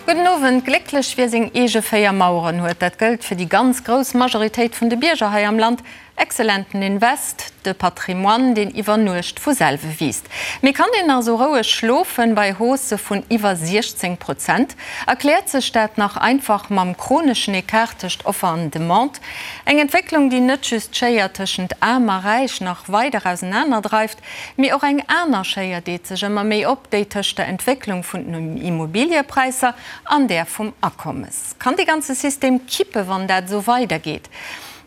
Gudden Owend. Glécklech wie seng eege 4 Maueren huet, dat gëllt fir déi ganz grouss Majoritéit vun de Bierger hei am Land. Excellenten Invest, de Patrimoine, deen iwwer Nuecht vu selwe wiisst. Mee kann een nach esou roueg schlofen bei Haussë vun iwwer 16 Prozent? Erkläert sech dat nach einfach mam chroneschen Ecart tëscht Offer an Demande? Eng Entwécklung, déi net just d'Schéier tëschent Aarm a Räich nach weider ausenaner dreift, mee och eng aner Schéier deet sech ëmmer méi op, déi tëscht der Entwécklung vun den Immobiliëpräisser an där vum Akommes. Kann dee ganze System kippe wann dat esou weidergeet?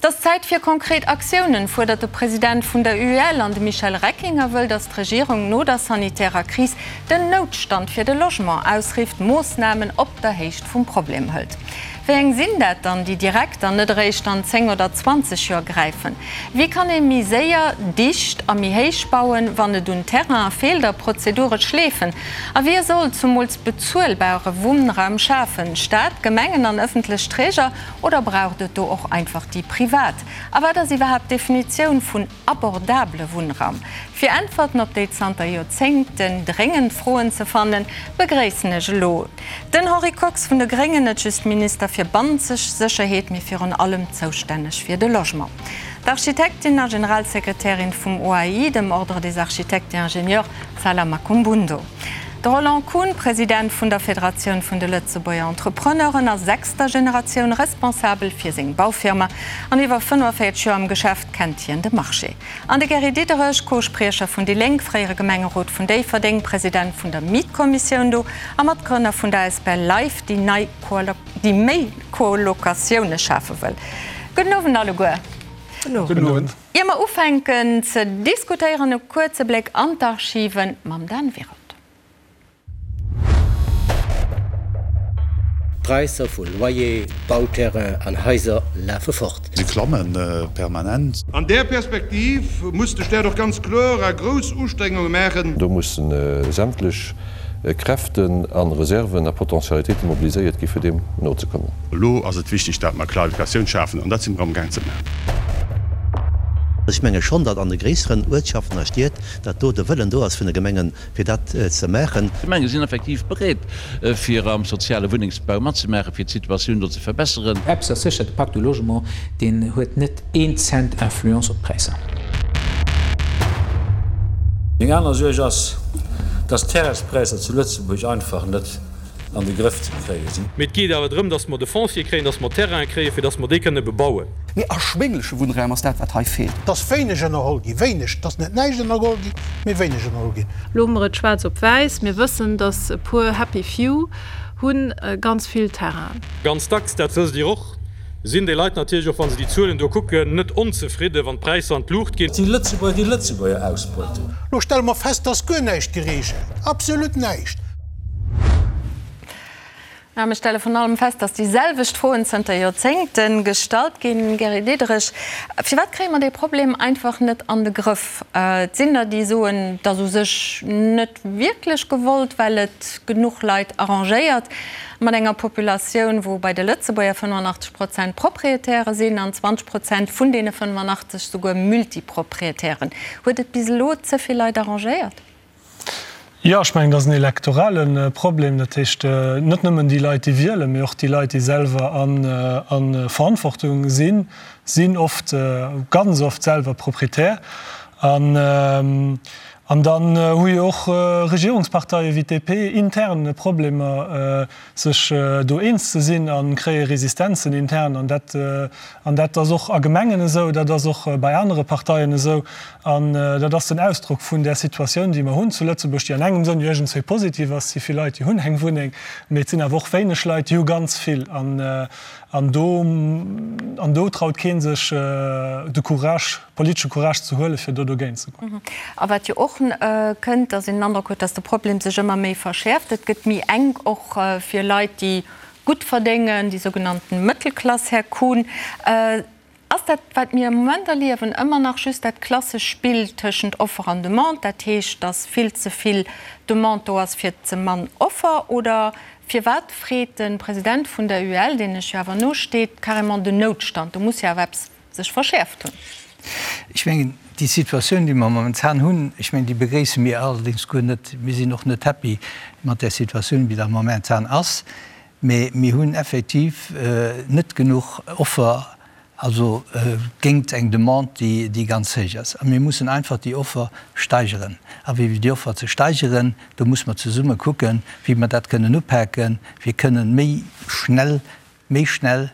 Et ass Zäit fir konkret Aktiounen, fuerdert de President vun der UEL. An de Michel Reckinger wëll, datt d'Regierung no der sanitärer Kris den Noutstand fir de Logement ausrifft, Moossnamen op der Héicht vum Problem hëlt. Wéi eng sinn dat dann, déi direkt an net eréischt an 10 oder 20 Joer gräifen? Wéi kann ee méi séier, dicht a méi héich bauen, wann et un Terrainen feelt a Prozedure schleefen? A wie soll zumools bezuelbare Wunnraum schafen? Staat, Gemengen an ëffentlech Träger? Oder braucht et do och einfach déi privat? A wat ass iwwerhaapt d'Definitioun vun abordabele Wunnraum? Fir Äntwerten op déi zanter Joerzéngten dréngend Froen ze fannen, begréissen ech elo den Henri Kox vun de Gréngen, net just Minister fir bannenzeg Sécherheet, mee virun allem zoustänneg fir de Logement, d'Architektin a Generalsekretärin vum OAI, dem Ordre des Architectes et Ingénieurs, Zala Makumbundo. De Roland Kuhn, President vun der Federatioun vun de Lëtzebuerger Entrepreneuren a sechster Generatioun Responsabel fir seng Baufirma an iwwer 45 Joer am Geschäft, kennt hien de Marché. An de Gary Diderich, Co-Spriecher vun déi Lénk, fréiere Gemengerot vun Déifferdeng, President vun der Mietkommissioun do a Matgrënner vun der asbl Life, déi nei déi méi Colocatioune schafe wëll. Gudden Owend alleguer. Gudden Owend. Ier mer ufänken ze diskutéieren, e kuerze Bléck an d'Archiven mam Dan Wirold. D'Präisser vu Loyer, Bauterrain an Haiser lafe fort. Se klamme permanent. An där Perspektiv muss de Staat och ganz kloer a grouss Ustrengunge maachen. Do musse sämtlech Kräften a Reserven a Potentialitéite mobiliséiert gi fir deem nozekommen. Elo ass et wichteg, dat mer Klarifikatioun schafen, an dat si mer amgaang ze maachen. Ech menge schonn, datt an de gréisseren Uertschaften a Stied, datt do de Wëllen do ass vun de Gemengen, fir dat ze maachen. D'Gemenge sinn effektiv bereet, fir am soziale Wunnengsbau matzemaachen, fir d'Situatioun do ze verbesseren. Eppes ass sécher, de Pacte du Logement, deen huet net een Cent Influence op d'Präisser. Meng aner Suerg ass, dass d'Terrainspräisser zu Lëtzebuerg einfach net an de Grëff ze kréie sinn. Mee et geet awer drëm, dass mer de Foncier kréien, dass mer Terrainen kréien, fir dass mer déi kënne bebauen. Mee erschwéngleche Wunnraum ass dat, wat hei feelt. Et ass wéineg ënnerholl ginn, wéineg, et ass net näischt ënnergeholl ginn, mee wéineg ënnerholl ginn. Elo hu mer et schwaarz op wäiss, mir wëssen, dass e puer happy few hu ganz vill Terrain. Ganz dacks, dat wësst Dir och, Sinn déi Leit natierlech och, wa se déi Zuelen do kucken, net onzefridden, wann d'Präisser an d'Luucht ginn. Et si Lëtzebuerger, déi Lëtzebuerger ausbeuten. Lo stelle mer fest, dass guer näischt geregelt, absolut näischt. Mä mir stelle vrun allem fest, dass déi selwecht Froen zënter Joerzéngte gestallt ginn. Gary Diderich, firwat kréie mer dee Problem einfach net an de Grëff? Et sinn der, déi soen, et ass u sech net wierklech gewollt, well et genuch Leit arrangéiert. Mat enger Populatioun, wou bei de Lëtzebuerger 85 Prozent Proprietäre sinn an 20 Prozent vun deene 85 souguer Multiproprietären. Huet et bis elo ze vill Leit arrangéiert? Jo, ech mengen, dat ass en elektorale Problem. Dat heescht, net nëmmen déi Leit, déi wielen, mee och déi Leit, déi selwer a Verantwortung sinn, sinn oft, ganz oft selwer Proprietär. An An dann hu jo och Regierungsparteie wéi d'DP intern Problemer, sech do eens ze sinn a kréie Resistenzen intern. An dat, an dat ass och a Gemengen esou, dat ass och bei anere Parteien esou. An dat ass den Ausdrock vun där Situatioun, déi mer hunn zu Lëtzebuerg, déi an engem Sënn jo iergendswéi positiv ass. Et si vill Leit, déi hunn eng Wunneng, mee et sinn awer och wéineg Leit, déi hu ganz vill. An, an do, an do traut kee sech de Courage, politesche Courage ze huelen, fir do dogéint ze goen. A wat jo och kënnt, datt een den Androck huet, datt de Problem sech ëmmer méi verschäerft. Et gëtt méi enk och fir Leit, déi gutt verdéngen, déi sougenannten Mëttelklass, Här Kuhn. Ass dat, wat mir am Moment erliewen, ëmmer nach just dat klassesch Spill tëschent Offer an Demande, dat heescht, datt vill ze vill Demande do ass fir ze mann Offer? Oder firwat freet de President vun der UEL, deen lech jo awer nosteet, carrément den Noutstand? Do muss jo awer eppes sech verschäerft hunn. Ech mengen, déi Situatioun, déi mer momentan hunn, ech mengen, déi begréisse mir allerdéngs guer net. Mir sinn och net happy mat där Situatioun, wéi dat momentan ass. Mee mir hunn effektiv net genuch Offer, also géingt eng Demande, déi ganz héich ass. A mir mussen einfach déi Offer steigeren. A wéi déi Offer ze steigeren, do muss mer zesumme kucken, wéi mer dat kënnen upaken, fir kënnen méi schnell, méi schnell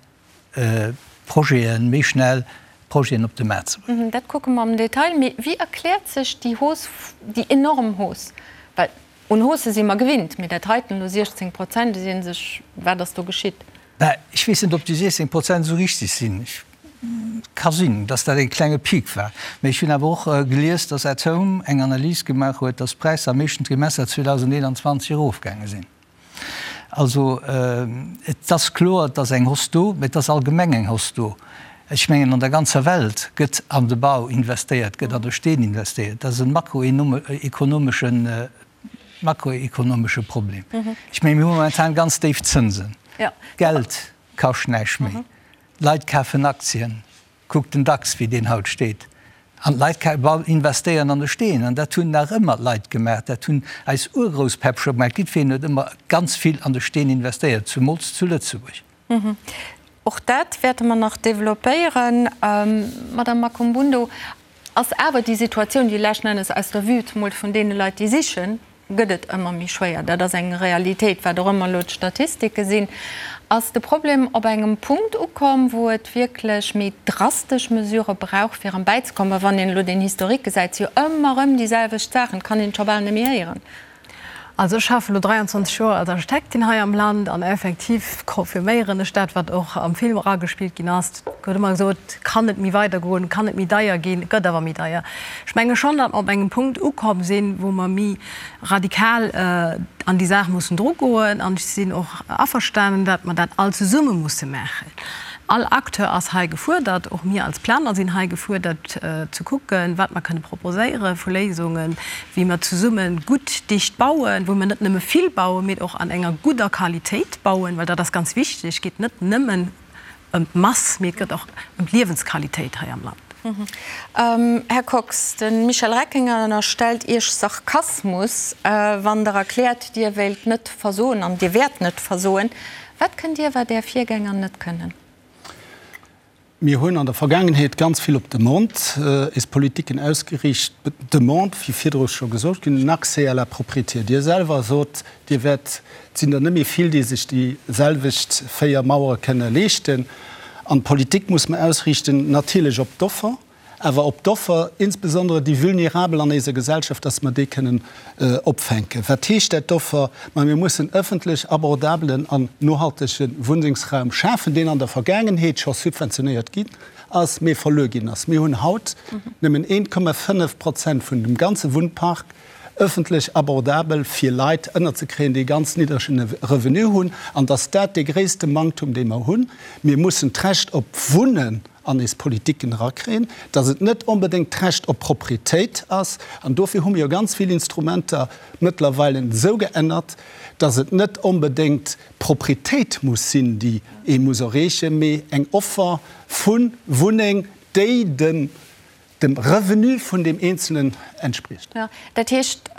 Projeten, méi schnell Projeten op de Maart ze bréngen. Dat kucke mer am Detail. Mee wéi erkläert sech déi Hausse, déi enorm Hausse? Well un Haussë si mer gewinnt, mee dat heiten elo 16 Prozent, et seet ee sech, wat ass do geschitt? Ben, ech weess net, ob déi 16 Prozent esou richtig sinn. Ka sinn, dass dat e klenge Peak war. Mee ech hunn awer och gelies, dass At Home eng Analys gemaach huet, dass d'Präisser am éischten Trimester 2021 erofgaange sinn. Also, et ass kloer, et ass eng Hausse do, mee et ass allgemeng eng Hausse do. Ech mengen, an der ganzer Welt gëtt an de Bau investéiert, gëtt an de Steen investéiert. Dat ass e makroekonomeschen, makroekonomesche Problem. Ech mengen, mir hu momentan ganz déif Zënsen. Geld kascht näischt méi. D'Leit kafen Aktien. Kuckt den DAX, wéi deen haut steet. An d'Leit investéieren an de Steen. An dat hunn nach ëmmer d'Leit gemaach. Dat hunn eis Urgrousspäpp scho gemaach. Jiddwereen huet ëmmer ganz vill an de Steen investéiert, zumools zu Lëtzebuerg. Och dat wäerte mer nach developpéieren. Madame Makumbundo, ass awer déi Situatioun, déi leschten Ennes aus der Vue zemol vun deene Leit, déi sichen, gëtt et ëmmer méi schwéier. Dat ass eng Realitéit, wat och ëmmer elo d'Statistike sinn. Ass de Problem op engem Punkt ukomm, wou et wierklech méi drastesch Mesurë brauch, fir erëm bäizekommen? Well wann een elo den Historique gesäit, si jo ëmmer erëm déi selwecht Saachen, et kann een et scho bal net méi héieren. Also ech schaffen elo 23 Joer als Architektin hei am Land an effektiv confirméieren ech dat, wat och am Film eragespillt ginn ass. Et gëtt ëmmer gesot, kann net méi weidergoen, kann net méi deier ginn, et gëtt awer méi deier. Ech menge schonn, datt mer op engem Punkt ukomm sinn, wou mer méi radikal an déi Saach mussen drugoen. An ech sinn och averstanen, datt mer dat all zesumme musse maachen. All Acteur ass hei gefuerdert, och mir als Planer sinn hei gefuerdert, ze kucken, wat mer kënne proposéiere vu Léisungen, wéi mer zesumme gutt dicht bauen, wou mer net nëmme vill bauen, mee och an enger gudder Qualitéit bauen, well dat ass ganz wichteg. Et geet net nëmmen ëm d'Mass, mee et gëtt och ëm d'Liewensqualitéit hei am Land. Här Kox, de Michel Reckinger ënnerstellt Iech Sarkasmus, wann Der erkläert, Dir wéilt net versoen an Dir wäert net versoen. Wat kënnt Dir, wat Är Virgänger net kënnen? Mir hunn an der Vergaangenheet ganz vill op d'Demande eis Politiken ausgeriicht. D'Demande, wéi virdru scho gesot ginn, den Accès à la propriété. Dir selwer sot, Dir wäert, et sinn der net méi vill, déi sech déi selwecht 4 Mauere kënne leeschten. An d'Politik muss mer ausriichten natierlech op d'Offer, awer op d'Offer, insbesondere déi Vulnerabel an eiser Gesellschaft, dass mer déi kënnen opfänken. Wat heescht dat, d'Offer? Ma mir mussen ëffentlech abordabelen an nohaltege Wunnengsraum schafen, deen an der Vergaangenheet scho subventionéiert ginn ass, mee verluer ginn ass. Mir hunn haut nëmmen 1,5 Prozent vun dem ganze Wunnpark ëffentlech abordabel fir Leit ënnerzekréien, déi e ganz niddregen Revenu hunn, an dass dat dee gréisste Manktum, dee mer hunn. Mir mussen d'Recht op Wunnen an eis Politiken erakréien, dass et net onbedéngt d'Recht op Proprietéit ass. An dofir hu mir jo ganz vill Instrumenter mëttlerweile esou geännert, dass et net onbedéngt d'Proprietéit muss sinn, déi ee muss erreechen, mee eng Offer vu Wunneng, déi dem dem Revenu vun deem Eenzelen entspriecht. Jo, dat heescht,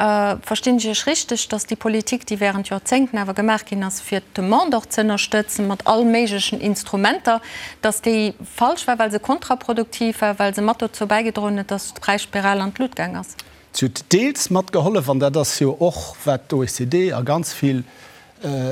verstinn ech Iech richteg, datt déi Politik, déi während Joerzéngten awer gemaach ginn ass, fir d'Demande och ze ënnerstëtzen, mat all méiglechen Instrumenter, datt déi falsch war, well se kontraproduktiv war, well se mat dozou bäigedroen huet, datt d'Präisspiral an d'Lut gaang ass? Si huet deels matgehollef, an dat ass jo och, wat d'OECD a ganz vill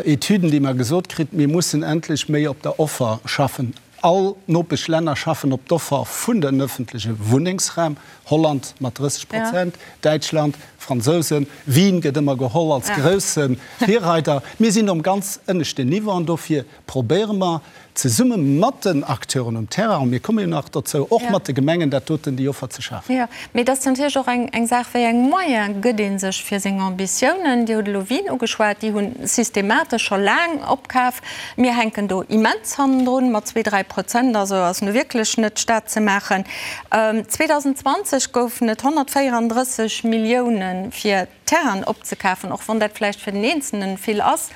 Etüden, déi mer gesot kritt, mir mussen endlech méi op der Offer schaffen. All Nopeschlänner schaffen op d'Offer vun den ëffentleche Wunnengsraum, Holland mat 30 Prozent, Däitschland, Fransousen, Wien gëtt ëmmer geholl als grousse Virreider. Mir sinn um ganz ënneschten Niveau an dofir probéiere mer zesumme mat den Acteuren um Terrain, a mir komme jo nach dozou, och mat de Gemengen dat doten, déi Offer ze schafen. Jo, mee et ass natierlech och eng Saach, wéi eng Moyene gëtt ee sech fir seng Ambitiounen. Dir hutt elo Wien ugeschwat, déi hu systematesch scho laang opkaf. Mir hänken do immens hannendrun mat zwee, dräi Prozent, also ass nu wierklech net d'Stad ze maachen. 2020 goufen et 134 Millioune fir Terrainen opzekafen, och wann dat vläicht fir den Eenzelnen vill ass.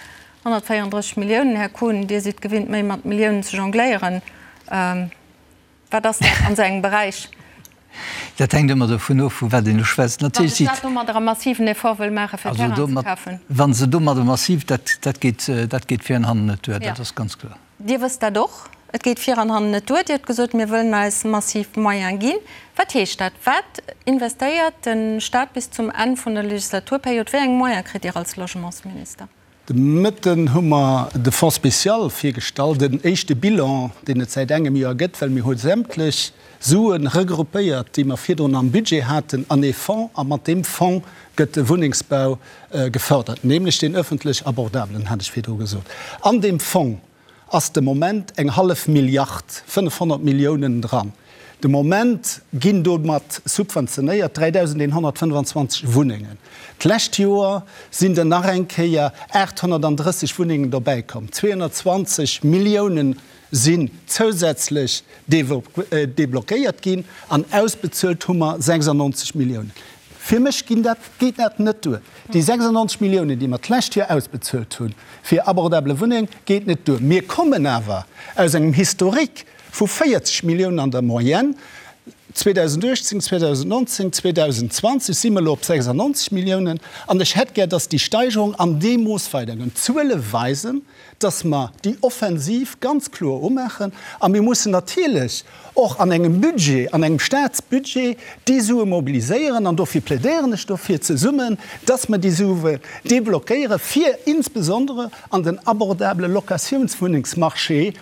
134 Milliounen, Här Kuhn, Dir sidd gewinnt méi mat Milliounen ze jongléieren. Wat ass dat an esou engem Beräich? Dat hänkt ëmmer dovun of, vu wat een elo schwätzt. Wann de Staat domadder e massiven Effort wëll maachen, fir Terrainen ze kafen. Wa se domadder massiv, dat, dat geet, dat geet vir an hannen net duer, dat ass ganz kloer. Dir wësst dat och, et geet vir an hannen net duer. Dir hutt gesot, mir wëllen eis massiv Moyene ginn. Wat heescht dat? Wat investéiert de Staat bis zum Enn vun der Legislaturperiod? Wéi eng Moyene kritt Dir als Logementsminister? De Mëtten hu mer de Fonds spécial virgestallt, en éischte Bilan, deen et säit engem Joer gëtt, well mir hu sämtlech Sue regroupéiert, déi mer virdrun am Budget haten, an ee Fonds. A mat deem Fonds gëtt de Wunnengsbau gefördert, nämlech deen öffentlech abordabelen, hat ech virdru gesot. An deem Fong ass de Moment eng hallef Milliard, 500 Milliounen, dran. De Moment ginn domat subventionéiert 3.125 Wunnengen. D'lescht Joer sinn der nach eng Kéier 830 Wunnengen dobäikomm. 220 Milliounen sinn zousätzlech deblockéiert ginn an ausbezuelt hu mer 96 Milliounen. Fir mech ginn dat, geet dat net duer. Déi 96 Milliounen, déi mer d'lescht Joer ausbezuelt hu fir abordable Wunneng, geet net duer. Mir kommen awer aus engem Historique vu 40 Milliounen an der Moyenne. 2018, 2019, 2020 si mer elo op 96 Milliounen. An ech hätt gär, dass déi Steigerung an deem Mooss weidergoen. D'Zuele weisen, dass mer déi Offensiv ganz kloer umaachen a mir mussen natierlech och an engem Budget, an engem Statsbudget déi Sue mobiliséieren an dofir plädéieren ech dofir zesummen, dass mer déi Sue deblockéiere fir insbesondere an den abordabele Locatiounswunnengsmarché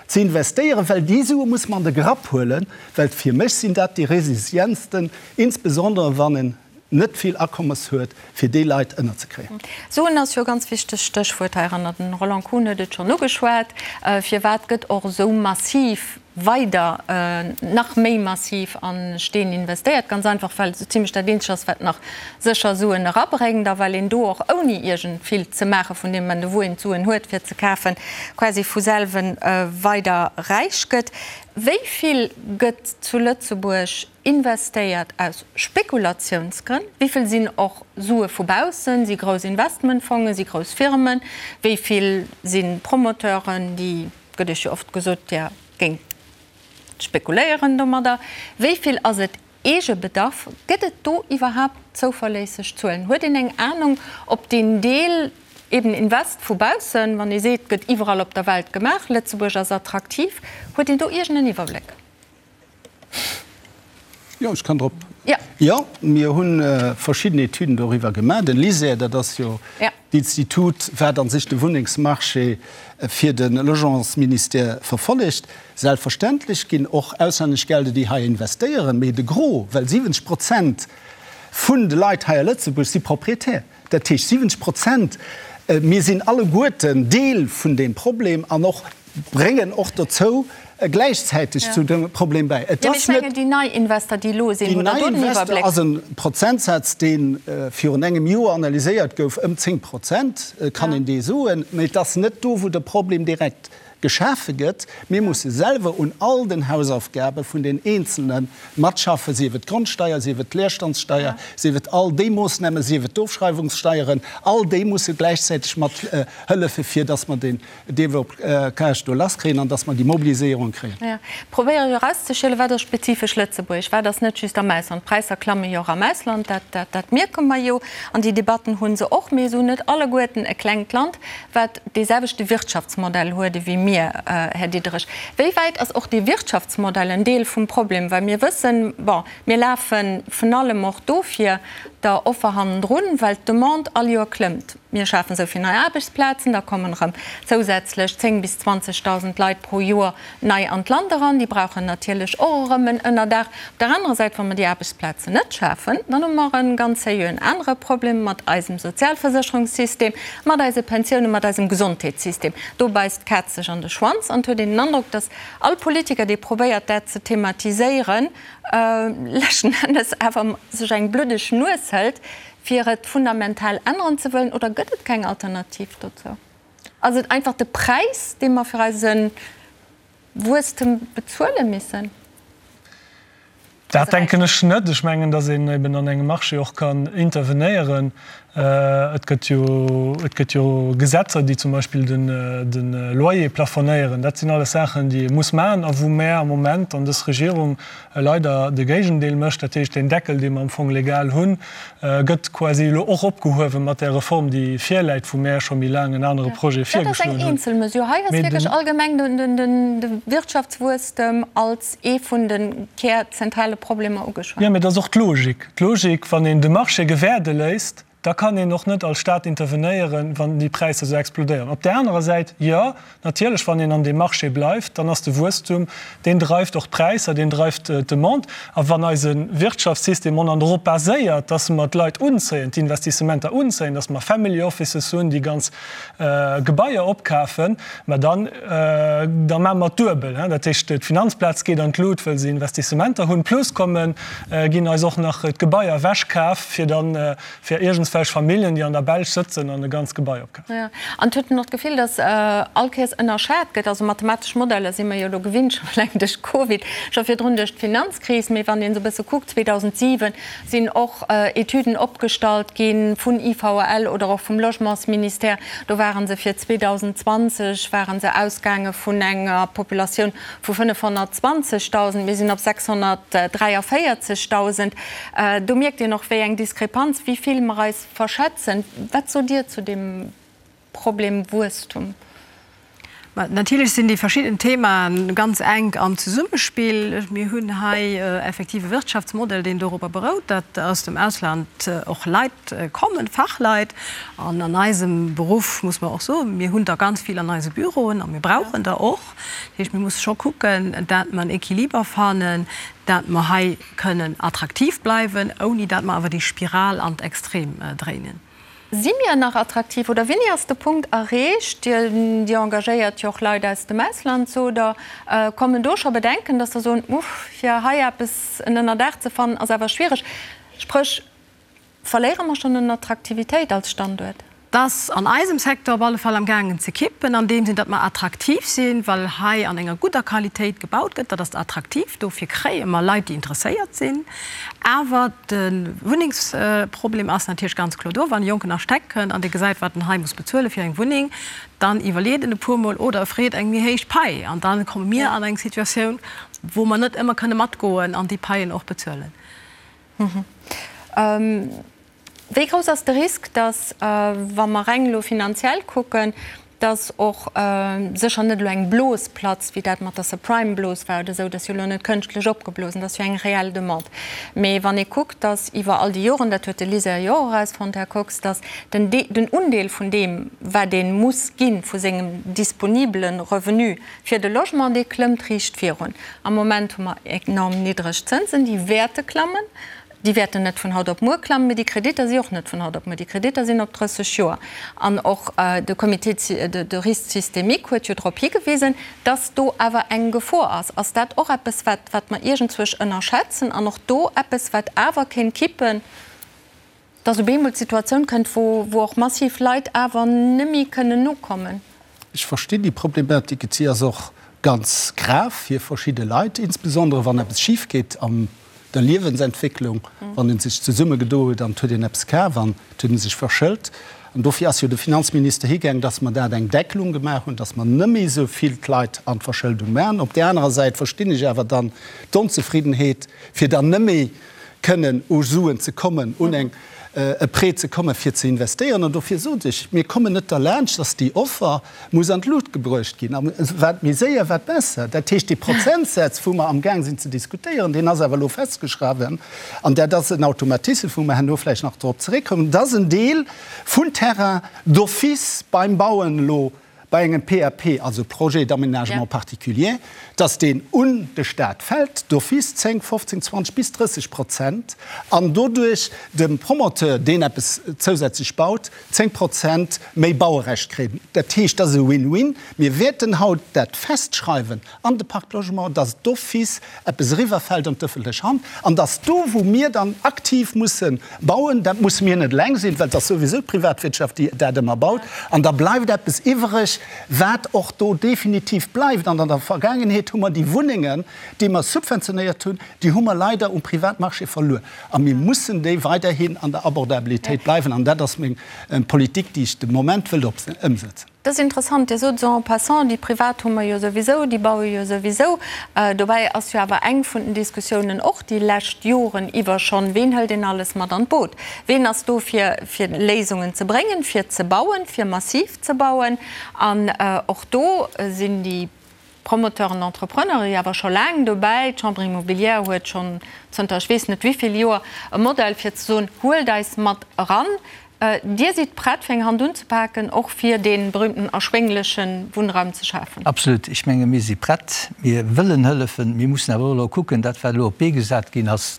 ze investéieren, well déi Sue muss mer an de Grapp huelen, well fir mech sinn dat déi resilientsten, insbesondere wann en net vill Akommes huet, fir déi Leit ënnerzekréien. Suen ass jo e ganz wichtegt Stéchwuert heiranner. Den Roland Kuhn huet et schonn ugeschwat. Firwat gëtt och esou massiv weider, nach méi massiv a Steen investéiert? Ganz einfach, well et esou zimlech dat eenzegt ass, wat nach sécher Suen erabréngt a well een do och ouni iergend vill ze maache vun deem Moment u wou een d'Suen huet fir ze kafen, quasi vu selwen weider räich gëtt. Wéi vill gëtt zu Lëtzebuerg Investéiert aus Spekulatiounsgrënn? Wéi vill sinn och Sue vu baussen, si grouss Investmentfongen, si grouss Firmen? Wéi vill si Promoteuren, déi, gëtt Iech jo oft gesot, Dir géingt spekuléieren domadder? Wéi vill ass et Eegebedarf? Gëtt et do iwwerhaapt zouverléisseg Zuelen? Huet een eng Anung, ob deen Deel eben Invest vu baussen, wann ee seet, gëtt iwwerall op der Welt gemaach, Lëtzebuerg ass attraktiv, huet een do iergend en Iwwerbléck? Jo, ech kann drop. Jo, mir hu verschidden Etüden doriwwer gemaach. Den LISER, dat ass jo d'Institut, wat a sech de Wunnengsmarché fir de Logementsministère verfollegt. Selbstverständlech ginn och auslännesch Gelder, déi hei investéieren, mee de Gros, well 70 Prozent vun de Leit hei a Lëtzebuerg si Propriétaire. Dat heescht 70 Prozent, mir sinn alleguerten Deel vun deem Problem an och bréngen och dozou gläichzäiteg zu dem Problem bäi. Et ass net. Déi nei Invester, déi elo sinn, hutt Der do den Iwwerbléck? Ass e Prozentsaz, dee virun engem Joer analyséiert gouf, ëm 10 Prozent kann een dee soen. Mee et ass net do, wou de Problem direkt geschafe gëtt. Mir musse selwer un all den Hausaufgabe vun den Eenzelne matschaffen, sief et d'Grondsteier, sief et d'Leerstandssteier, sief et all déi Moossnamen, sief et d'Ofschreiwungssteieren, all déi musse gläichzäiteg mat hëllefe fir dass mer den Deblocage do lasskréien an dass mer déi Mobiliséierung kréien. Jo, probéiere jo erauszeschielen, wat ass spezifesch lëtzebuergesch, wat ass net just am Ausland. D'Präisser klamme jo och am Ausland, dat, dat, dat mierke mer jo an déi Debatten hu se och. Mir hunn net alleguerten e klengt Land, wat dee selwechte Wirtschaftsmodell huet ewéi mir, Här Diderich. Wéi wäit ass och dee Wirtschaftsmodell en Deel vum Problem? Well mir wëssen, bon, mir lafe vun allem och dofir der Offer hannendrun, well d'Demande all Joer klëmmt. Mir schafen esou vill nei Aarbechtsplazen, da kommen erëm zousätzlech 10 bis 20.000 Leit pro Joer nei an d'Land eran. Déi brauchen natierlech och erëm en Ënnerdaach. Op der anerer Säit, wa mer déi Aarbechtsplazen net schafen, dann hu mer e ganz sérieuxen anere Problem mat eisem Sozialversécherungssystem, mat eise Pensiounen, mat eisem Gesondheetssystem. Do beisst d'Kaz sech an de Schwanz an et huet een den Androck, datt all Politiker, dee probéiert, dat ze thematiséieren, leschten Ennes awer sech eng bluddeg Nues hëlt, fir et fundamental änneren ze wëllen. Oder gëtt et keng Alternativ dozou? Ass et einfach de Präis, dee mer fir eise Wuesstem bezuele missen? Dat denken ech net. Ech mengen, datt een eben an engem Marché och kann intervenéieren. Et gëtt jo, et gëtt jo Gesetzer, déi zum Beispill den, de Loyer plafonéieren. Dat sinn alles Saachen, déi ee muss maachen a wou mär am Moment an dës Regierung leider de Géigendeel mécht. Dat heescht, deen Deckel, dee mer am Fong legal hunn, gëtt quasi elo och opgehuewe mat där Reform, déi virläit, wou mär scho méi laang en anere Projet Dat ass virgeschloen eng hunn. eenzel Mesure. Hei ass Mee wierklech den. allgemeng de Wirtschaftswuesstem als ee vun de kärzentrale Problemer ugeschwat. Jo, mee dat ass och d'Logik. D'Logik, wann een de Marché gewäerde léisst, da kann een och net als Stat intervenéieren, wann déi Präisser esou explodéieren. Op där anerer Säit, jo, natierlech, wann een an deem Marché bleift, dann ass de Wuesstum, deen dreift och d'Präisser, deen dreift d'Demande. A wann eise Wirtschaftssystem on an dorop baséiert, dass mer d'Leit unzéien, d'Investissementer unzéien, dass mer Family Offices hunn, déi ganz Gebaier opkafen, mä dann, da maache mer et duebel. Dat heescht, d'Finanzplaz geet an d'Lut, wëll se Investissementer hunn, plus kommen, ginn eis och nach d'Gebaier ewechkaf, fir dann, fir iergendswelch Familljen, déi an der Belsch sëtzen an e ganzt Gebai opkafen. Jo, an et huet een och d'Gefill, datt all Kéiers ënnerschat gëtt. Also mathematesch Modeller si mer jo elo gewinnt, scho eleng duerch Covid, scho virdrun duerch d'Finanzkris. Mee wann een esou e bësse kuckt, 2007 sinn och Etüden opgestallt gi vun IVL oder och vum Logementsministère. Do ware se fir 2020 ware se ausgaange vun enger Populatioun vu 520.000. Mir sinn op 643.000. Do mierkt een och, wéi eng Diskrepanz, wéi vill mer eis verschätzen. Wat sot Dir zu deem Problem Wuesstum? Natierlech sinn déi verschidden Themae ganz enk am Zesummespill. Mir hunn hei effektiv e Wirtschaftsmodell, deen dorobber berout, datt aus dem Ausland och Leit kommen, Fachleit. An an eisem Beruff muss mer och soen, mir hunn der ganz vill an eise Büroen a mir brauchen der och. Dat heescht, mir musse scho kucken, dat mer en Equiliber fannen, dat mer hei kënnen attraktiv bleiwen, ouni dat mer awer déi Spiral an d'Extrem dréinen. Si mir nach attraktiv oder wéini ass de Punkt erreecht, Dir, Dir engagéiert jo och Leit aus dem Ausland, sot Der, kommen do scho Bedenken, datt Der soen, uff, fir hei eppes en Ënnerdaach ze fannen ass awer schwiereg. Spréch, verléiere mer schonn un Attraktivitéit als Standuert? Et ass an eisem Secteur op alle Fall am gaangen ze kippen, an deem Sinn, datt mer attraktiv sinn, well hei an enger gudder Qualitéit gebaut gëtt. Dat ass attraktiv, dofir kréie mer Leit, déi interesséiert sinn. Awer de Wunnengsproblem ass natierlech ganz kloer do. Wann e jonken Architekt kënnt an dee gesäit, wat en hei muss bezuele fir eng Wunneng, dann iwwerleet en e puermol oder e freet eng méi héich Pai. An da komme mir an eng Situatioun, wou mer net ëmmer kënne matgoen an déi Paien och bezuelen. Wéi grouss ass de Risk, datt, wa mer reng elo finanziell kucken, datt och sécher net elo eng Blos platzt, wéi dat mat der Subprime-Blos war oder esou, dat ass jo elo net kënschtlech opgeblosen, dat ass jo eng reell Demande. Mee wann ee kuckt, datt iwwer all déi Joren, dat huet de LISER jo och erausfonnt, Här Kox, datt den den Undeel vun deem, wat ee muss gi vu sengem disponibele Revenu fir de Logement, dee klëmmt riicht virun. Am Moment hu mer enorm niddreg Zënsen, déi wäerte klammen. Déi wäerten net vun haut op muer klammen, mee déi Kreditter si och net vun haut op muer. Déi Kreditter sinn op 30 Joer. An och de Comité de risque systémique huet jo drop higewisen, dass do awer eng Gefor ass. Ass dat och eppes, wat, wat mer iergendzwousch ënnerschätzen an och do eppes, wat awer kéint kippen, dass op eemol d'Situatioun kënnt, wou, wou och massiv Leit awer neméi kënnen nokommen? Ech verstinn déi Problematik. Et si ass och ganz grav fir verschidde Leit, insbesondere wann eppes schif geet am der Liewensentwécklung, wann ee sech zesummegedo huet an et huet een eppes kaf an et huet ee sech verschëlt. An dofir ass jo de Finanzminister higaang, dass mer dat eng Deckelung gemaach hunn, dass mer net méi esou vill d'Leit an d'Verschëldung maachen. Op där anerer Säit verstinn ech awer dann d'Onzefriddenheet, fir dann net méi kënnen u Suen ze kommen, un eng e Prêt ze kommen, fir ze investéieren. An dofir sot ech, mir kommen net derlaanscht, dass déi Offer muss an d'Lut gebruecht ginn. A wat méi séier, wat besser. Dat heescht, dee Prozentsaz, wou mer amgaang sinn ze diskutéieren, deen ass awer elo festgeschriwwen. An dat ass en Automatisme, wou mer herno vläicht nach drop zeréckkommen, dass en Deel vun Terrain d'office beim Bauen elo bei engem PAP, also Projet d'aménagement particulier, dass deen un de Stat fält, d'office 10, 15, 20 bis 30 Prozent, an doduerch de Promoteur, deen eppes zousätzlech baut, 10 Prozent méi Bauerecht kréien. Dat heescht, dat ass e Win-win. Mir wäerten haut dat festschreiwen an de Pacte Logement, dass d'office eppes eriwwerfält an d'ëffentlech Hand an dass do, wou mir dann aktiv musse bauen, dat musse mir net eleng sinn, well et ass souwisou d'Privatwirtschaft, déi dat ëmmer baut, an da bleift eppes iwwereg. Wat och do definitiv bleift, an an der Vergaangenheet hu mer déi Wunnengen, déi mer subventionéiert hunn, déi hu mer leider um Privatmarché verluer. A mir mussen déi weiderhin an der Abordabilitéit bleiwen. An dat ass meng Politik, déi ech de Moment wëll ëmsetzen. Dat ass interessant. Dir sot esou en passant, déi Privat hu mer jo souwisou, déi baue jo souwisou. Dobäi ass jo awer eng vun den Diskussiounen och déi lescht Joren iwwer schonn, Ween hëlt een alles mat an d'Boot? Ween ass do fir, fir Léisungen ze bréngen, fir ze bauen, fir massiv ze bauen? An och do sinn déi Promoteuren, Entrepreneuren jo awer scho laang dobäi. D'Chambre immobilière huet schonn zënter ech weess net wéi vill Joer e Modell fir ze soen, Huelt eis mat eran. Dir sidd prett fir eng Hand unzepaken, och fir dee berühmten erschwéngleche Wunnraum ze schafen? Absolut. Ech menge mir si prett, mir wëllen hëllefen. Mir mussen awer och elo kucken, dat wat elo op d'Bee gesat ginn ass,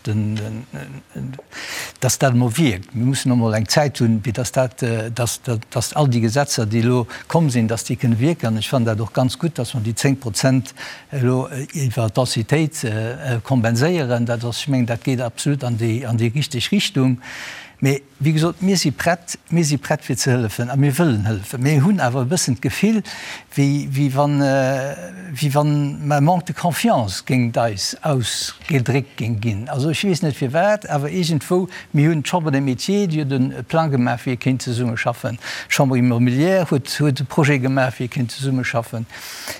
dass dat emol wierkt. Mir mussen och emol eng Zäit hunn, fir dass dat, dass, dass all déi Gesetzer, déi elo komm sinn, dass déi kënne wierken. An ech fannen dat och ganz gutt, dass mer déi 10 Prozent elo iwwer d'Densitéit kompenséieren. Dat ass, ech mengen, dat geet absolut an déi, an déi richteg Richtung. Mee wéi gesot, mir si prett, mir si prett fir ze hëllefen a mir wëllen hëllefen. Mir hunn awer e bëssen d'Gefill, wéi, wéi wann, wéi wann e Manque de confiance géingt eis ausgedréckt géing ginn. Also ech weess net firwat, awer iergendwou, mir hunn d'Chambre des Métiers, déi huet e Plang gemaach, wéi ee kéint zesummeschaffen. D'Chambre immobilière huet, huet e Projet gemaach, wéi ee kéint zesummeschaffen.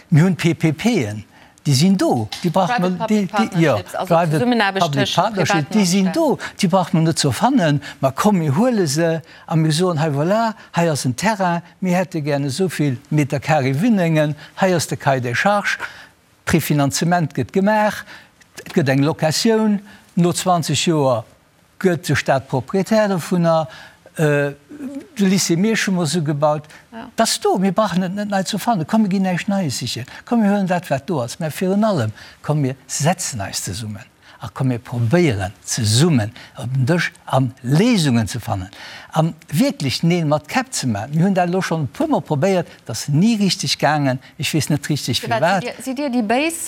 Mir hunn d'PPPen, Déi sinn do, déi brauche mer, déi, déi, jo, Private Public Partnership, déi sinn do, déi brauche mer net ze erfannen. Mä komm, mir huele se a mir soen, hei voilà, hei ass en Terrain, mir hätte gären esou vill Meter carré Wunnengen, hei ass de Cahier des charges, Prefinanzement gëtt gemaach, et gëtt eng Locatioun no 20 Joer. Gëtt de Staat Propriétaire dovunner? De Lycée Miersch hu mer esou gebaut. Dat ass do. Mir brauchen et net nei ze erfannen. Komm, mir ginn näischt Neies sichen. Komm, mir huelen dat, wat do ass. Mä virun allem, komm, mir setzen eis zesummen a komm, mir probéieren zesummen op den Dësch a Léisungen ze fannen a wierklech Neel mat Käpp ze maachen. Mir hunn dat elo schonn e puermol probéiert. Et ass ni richteg gaangen. Ech weess net richteg firwat. Sidd Dir déi Béis,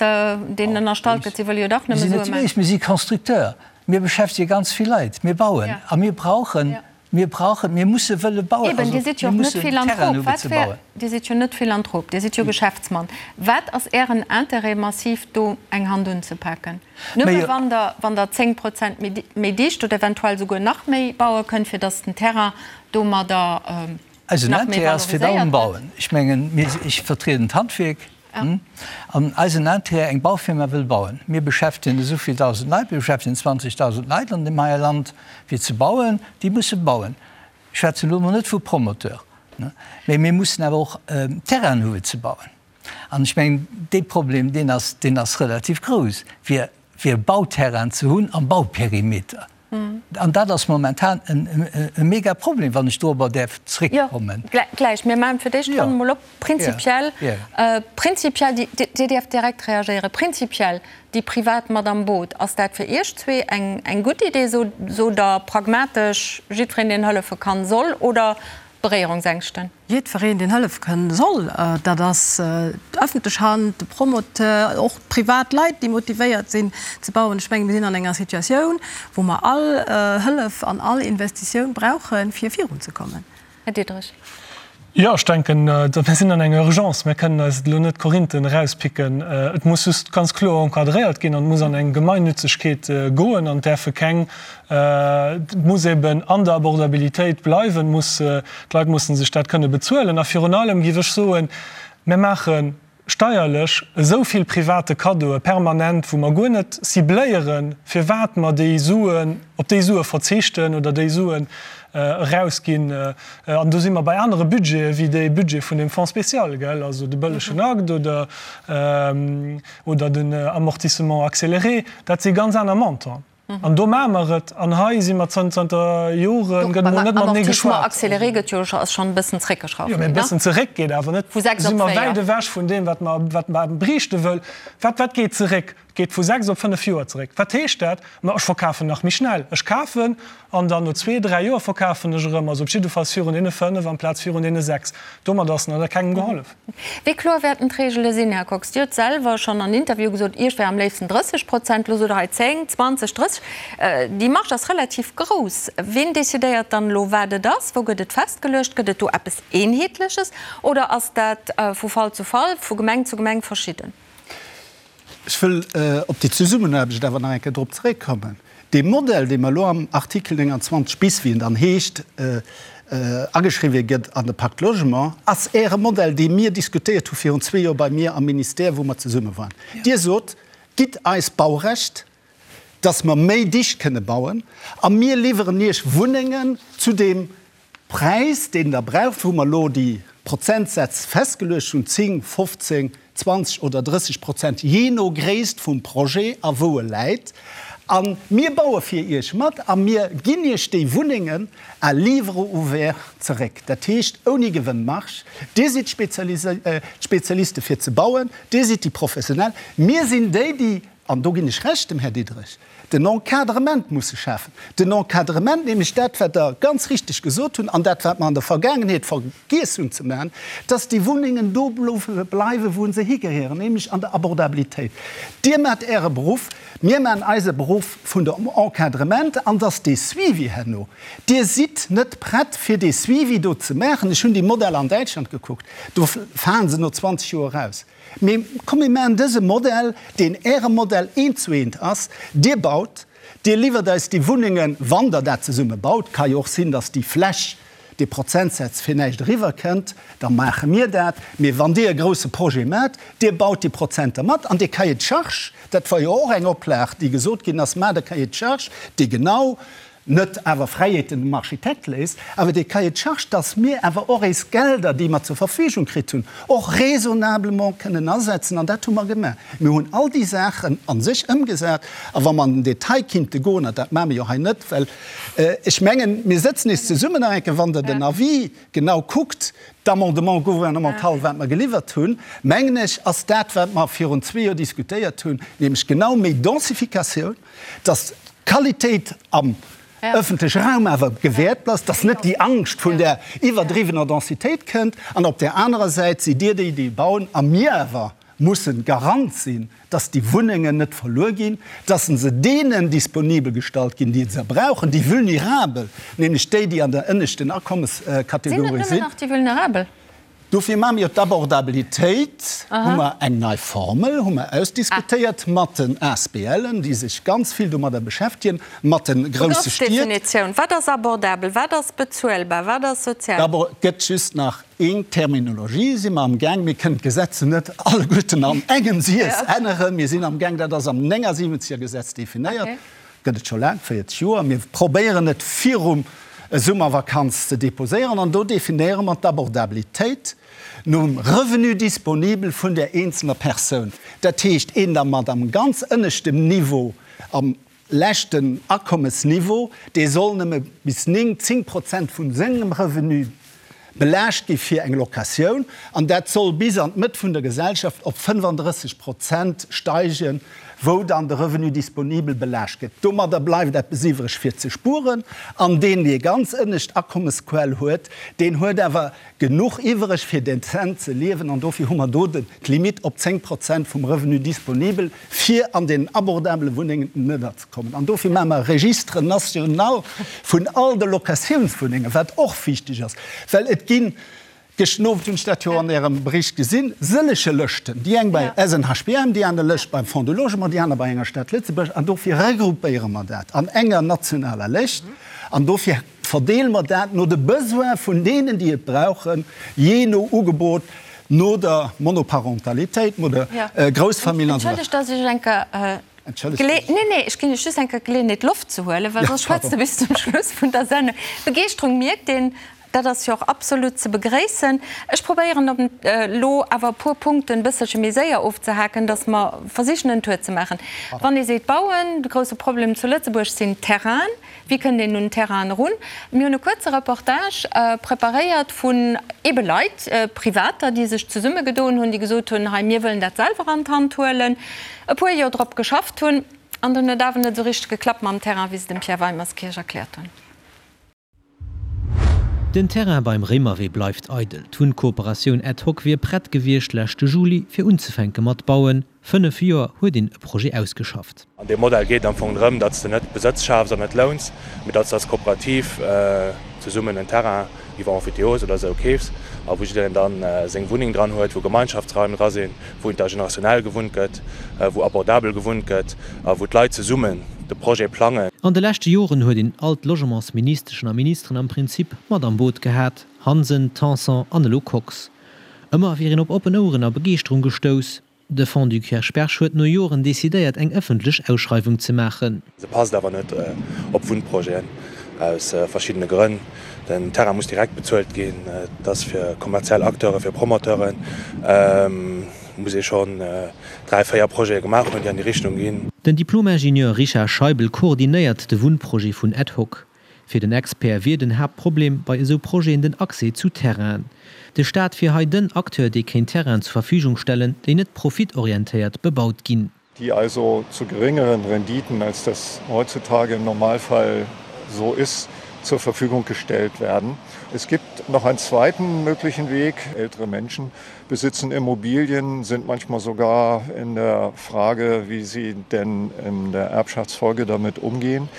deenen ënnerstallt gëtt, si wëlle jo dach nëmme Sue maachen? Mir sinn net déi Béis. Mir si Constructeur. Mir beschäftege ganz vill Leit. Mir bauen a mir brauchen, mir brauchen, mir musse wëlle bauen. Eben, Dir sidd jo och net Philanthrop. Wat wär, Dir sidd jo net Philanthrop, Dir sidd jo Geschäftsmann. Wat ass Ären Interêt, massiv do eng Hand unzepaken? Nëmme wann Der, wann Der 10 Prozent méi, méi dicht oder eventuell souguer nach méi baue kënnt, fir datt den Terrain domadder Eisen nach méi Interêt ass fir valoriséiert allem gëtt? Bauen. Ech mengen, mir, ech vertrieden d'Handwierk. An eisen Intérêt, eng Baufirma wëll bauen. Mir beschäftegen esou vill 1.000 Leit, mir beschäftegen 20.000 Leit an deem heie Land, fir ze bauen. Déi musse bauen. Ech schwätzen elo emol net vu Promoteur, mä mir mussen awer och Terrainen hu fir ze bauen. An ech mengen, dee Problem, deen ass, deen ass relativ grouss, fir, fir Bauterrainen ze hunn am Bauperimeter. An dat ass momentan e mega Problem, wann ech dorobber däerf zréckkommen. Jo, gläich. Mir maachen fir d'éischt d'Ronn emol op. Prinzipiell, prinzipiell, Dir däerft direkt reagéieren, prinzipiell, déi Privat mat am Boot, ass dat fir Iech zwee eng gutt Idee? Sot Der pragmatesch, jiddwereen, deen hëllefe kann, soll, oder Beréierungsängschten? Jiddwereen, deen hëllef kënn soll, dat ass d'öffentlech Hand, de Promoteur, och privat Leit, déi motivéiert sinn ze bauen. Ech mengen, mir sinn an enger Situatioun, wou mer all Hëllef an all Investitioun brauchen, fir virunzekommen. Här Diderich. Jo, ech denken, mir sinn an enger Urgence. Mir kënnen eis elo net Korinthen erauspicken. Et muss just ganz kloer encadréiert ginn an et muss an eng Gemeinnützegkeet goen an et däerfe keng Et muss eben an der Abordabilitéit bleiwen, muss, d'Leit mussen sech dat kënne bezuelen. A virun allem géif ech soen, mir maache steierlech esou vill private Kaddoe permanent, wou mer guer net cibléieren, firwat mer déi Suen, op déi Sue verzichten oder déi Suen erausginn. An do si mer bei anere Budgete wéi dee Budget vun deem Fonds spécial, gell, also de bëllegen Akt oder, oder den Amortissement accéléré, dat si ganz aner Montanten. An do maache mer et. An hei si mer zanter Joren, gëtt emol net matenee geschwat. Amortissement accéléré gëtt jo, ass schonn e bëssen zeréckgeschrauft ginn, ne? Jo, mee e bëssen zeréck geet awer net. Vu 6 op 4. Si mer wäit ewech vun deem, wat mer, wat mer briichte wëll. Wat, wat geet zeréck? Geet vu 6 op 5 Joer zeréck. Wat heescht dat? Ma ech verkafen nach méi schnell. Ech kafen an dann no zwee, dräi Joer verkafen ech erëm. Also op jiddefalls virun deene 5 amplaz virun deene 6. Domat ass nach kengem gehollef. Wéi kloer wäerten d'Reegele sinn, Här Kox? Dir hutt selwer schonn an Interviewe gesot, Iech wär am léifsten 30 Prozent. Elo sot Der hei 10, 20, 30. Déi Marge ass relativ grouss. Ween decidéiert dann elo, wat et ass? Wou gëtt et festgeluecht? Gëtt et do eppes Eenheetleches oder ass dat vu Fall zu Fall, vu Gemeng zu Gemeng verschidden? Ech wëll op déi Zesummenaarbecht awer nach eng Kéier drop zeréckkommen. Dee Modell, dee mer elo am Artikel 29 bis, wéi en dann heescht, ageschriwwé gëtt an de Pacte Logement, ass Äre Modell, dee mir diskutéiert hu virun zwee Joer bei mir am Ministère, wou mer zesumme waren. Dir sot, Gitt eis Baurecht, dass mer méi dicht kënne bauen, a mir liwweren Iech Wunnengen zu deem Präis, deen Der braucht, wou mer elo déi Prozentsätz festgeluecht hunn, 10, 15, 20 oder 30 Prozent, jee no Gréisst vum Projet a wou e läit. A mir baue fir Iech mat a mir ginn Iech déi Wunnengen à livre ouvert zeréck, dat heescht ouni Gewënnmarge. Dir sidd d'Spezialiste fir ze bauen, Dir sidd déi Professionell, mir sinn déi, déi, an do ginn ech Recht dem Här Diderich, den Encadrement musse schafen. Den Encadrement, nämlech dat, wat Der ganz richtig gesot hunn an dat, wat mer an der Vergaangenheet vergiess hunn ze maachen, dass déi Wunnengen do bleiwen, wou se higehéieren, nämlech an der Abordabilitéit. Dir maacht Äre Beruff, mir maachen eise Beruff vun dem Encadrement an dass dee Suivi herno, Dir sidd net prett, fir dee Suivi do ze maachen. Ech hunn déi Modeller an Däitschland gekuckt, do falen se no 20 Joer eraus. Mee komm, mir maachen dëse Modell, deen Äre Modell eent zu eent ass. Dir baut, Dir liwwert eis déi Wunnengen, wann Der dat zesumme baut. Ka jo och sinn, datt déi Fläch, dee Prozentsaz fir näischt eriwwer kënnt, da maache mir dat. Mee wann Dir e grousse Projet maacht, Dir baut déi Prozenter mat an dee Cahier de charges, dat war jo och eng Oplag, déi gesot ginn ass, maacht e Cahier de charges, dee genau net awer Fräiheeten dem Architekt léisst, awer dee Cahier de charges, dass mir awer och éis Gelder, déi mer zur Verfügung kritt hunn, och raisonnablement kënnen asetzen. An dat hu mer gemaach. Mir hunn all déi Saachen a sech ëmgesat. A wa mer an den Detail kinnte goen, an dat maache mir jo hei net, well ech mengen, mir sëtzen nees zesummen nach eng Kéier, wann Der den Avis genau kuckt, d'Amendement gouvernemental, wat mer geliwwert hunn, mengen ech, ass dat, wat mer virun zwee Joer diskutéiert hunn, nämlech genau méi Densificatioun, dass d'Qualitéit am ëffentleche Raum awer gewährt bleift, dass net déi Angscht vun där iwwerdriwwener Densitéit kënnt. An op där anerer Säit sidd Dir déi, déi bauen, a mir awer mussen Garant sinn, dass déi Wunnengen net verluer ginn, dass se deenen disponibel gestallt ginn, déi se brauchen, déi Vulnerabel, nämlech déi, déi an der ënneschten Akommeskategorie sinn. Sinn et nëmmen nach déi Vulnerabel? Dofir maache mir jo d'Abordabilitéit, hu mer eng nei Formel, hu mer ausdiskutéiert mat den ASBLen, déi sech ganz vill domadder beschäftegen, mat de grousse Stied. Begrëffsdefinitioun, Wat ass abordabel, wat ass bezuelbar, wat ass sozial? D'abord gëtt just nach eng Terminologie, si mer amgaang, mir kënnen d'Gesetze net alleguerten an engem Siess änneren, mir sinn amgaang, dat ass am 79er Gesetz definéiert, Gëtt et scho laang, 40 Joer. Mir probéieren et virum Summervakanz ze deposéieren an do definéiere mer d'Abordabilitéit nom Revenu disponibel vun där eenzelner Persoun. Dat heescht, een da mat am ganz ënneschtem Niveau, am leschten Akommesniveau, dee soll nëmme bis 9, 10 Prozent vu sengem Revenu belaascht gi fir eng Locatioun, an dat soll bis an d'Mëtt vun der Gesellschaft op 35 Prozent steigen, wou dann de Revenu disponibel belaascht gëtt. Domadder bleift eppes iwwreg fir ze spueren, an deen, dee ganz ënnescht Akommesquell huet, deen huet awer genuch iwwreg fir dezent ze liewen, an dofir hu mer do d'Limite op 10 Prozent vum Revenu disponibel, fir an deenen abordabele Wunnengen ënnerzekommen. An dofir maache mer e Registre national vun all de Locatiounswunnengen, wat och wichteg ass, well et ginn, gëschten Owend hunn ech dat jo an Ärem Bericht gesinn, sëllege Lëschten, déi eng bei SNHBM, déi aner Lëscht beim Fonds du Logement, déi aner bei enger Stad Lëtzebuerg. An dofir regroupéiere mer dat an enger nationaler Lëscht an dofir verdeele mer dat no de Besoin vun deenen, déi et brauchen, jee no Ugebot, no der Monoparentalitéit, no der Groussfamill an esou weider. Entschëllegt, dass ech eng Kéier Entschëllegt. Nee, nee, ech ginn Iech just eng Kéier d'Geleeënheet, Loft ze huelen, well soss schwätzt Der bis zum Schluss vun der Sendung. D'Begeeschterung mierkt een. Dat ass jo och absolut ze begréissen. Ech probéieren op elo awer e puer Punkten e bësselche méi séier ofzehaken, dass mer versichen en Tour ze maachen. Wann ee seet bauen, de grouse Problem zu Lëtzebuerg sinn d'Terrainen. Wéi kënnt een un Terrainen erun? Mir hunn e kuerze Reportage preparéiert vun ebe Leit, Privater, déi sech zesummegedoen hunn, déi gesot hunn, hei mir wëllen dat selwer an d'Hand huelen, e puer Joer drop geschafft hunn an dann huet awer net esou richteg geklappt mam Terrain, wéi se dem Pierre Weimerskirch erkläert hunn. Den Terrain beim Réimerwee bleift eidel. D'Wunnkooperatioun Ad Hoc wier prett gewiescht leschte Juli, fir unzefänke mat bauen. 5 Joer huet een e Projet ausgeschafft. An deem Modell geet et am Fong drëm, datt s de net Besëtz schafs an net louns, mee datt s de als Kooperativ zesummen en Terrain iwwer Emphytéose oder esou keefs a wou jiddereen dann seng Wunneng dran huet, wou Gemeinschaftsraim dra sinn, wou intergenerationell gewunnt gëtt, wou abordabel gewunnt gëtt a wou d'Leit zesummen de Projet plangen. An de leschte Joren huet een all d'Logementsministeschen a ministeren am Prinzip mat am Boot gehat, Hansen, Tanson an elo Kox. Ëmmer wier een op oppen Oueren a Begeeschterung gestouss. De Fonds du Kirchberg huet no Joren decidéiert eng ëffentlech Ausschreiwung ze maachen. Se passt awer net op Wunnprojeten, aus verschiddene Grënn. Den Terrain muss direkt bezuelt ginn, et ass fir kommerziell Acteuren, fir Promoteuren. Muss ee schonn 3, 4 Projete gemaach hunn, déi an déi Richtung ginn. Den Diplom-Ingenieur Richard Scheibel koordinéiert de Wunnprojet vun Ad Hoc. Fir den Expert wier den Haaptproblem bei esou Projeten den Accès zu Terrainen. De Staat wier hei den Acteur, dee kéint Terrainen zur Verfügung stellen, déi net profitorientéiert bebaut ginn. Die also zu geringeren Renditen, als das heutzutage im Normalfall so ist, zur Verfügung gestellt werden. Es gibt noch einen zweiten möglichen Weg. Ältere Menschen besitzen Immobilien, sind manchmal sogar in der Frage, wie sie denn in der Erbschaftsfolge damit umgehen,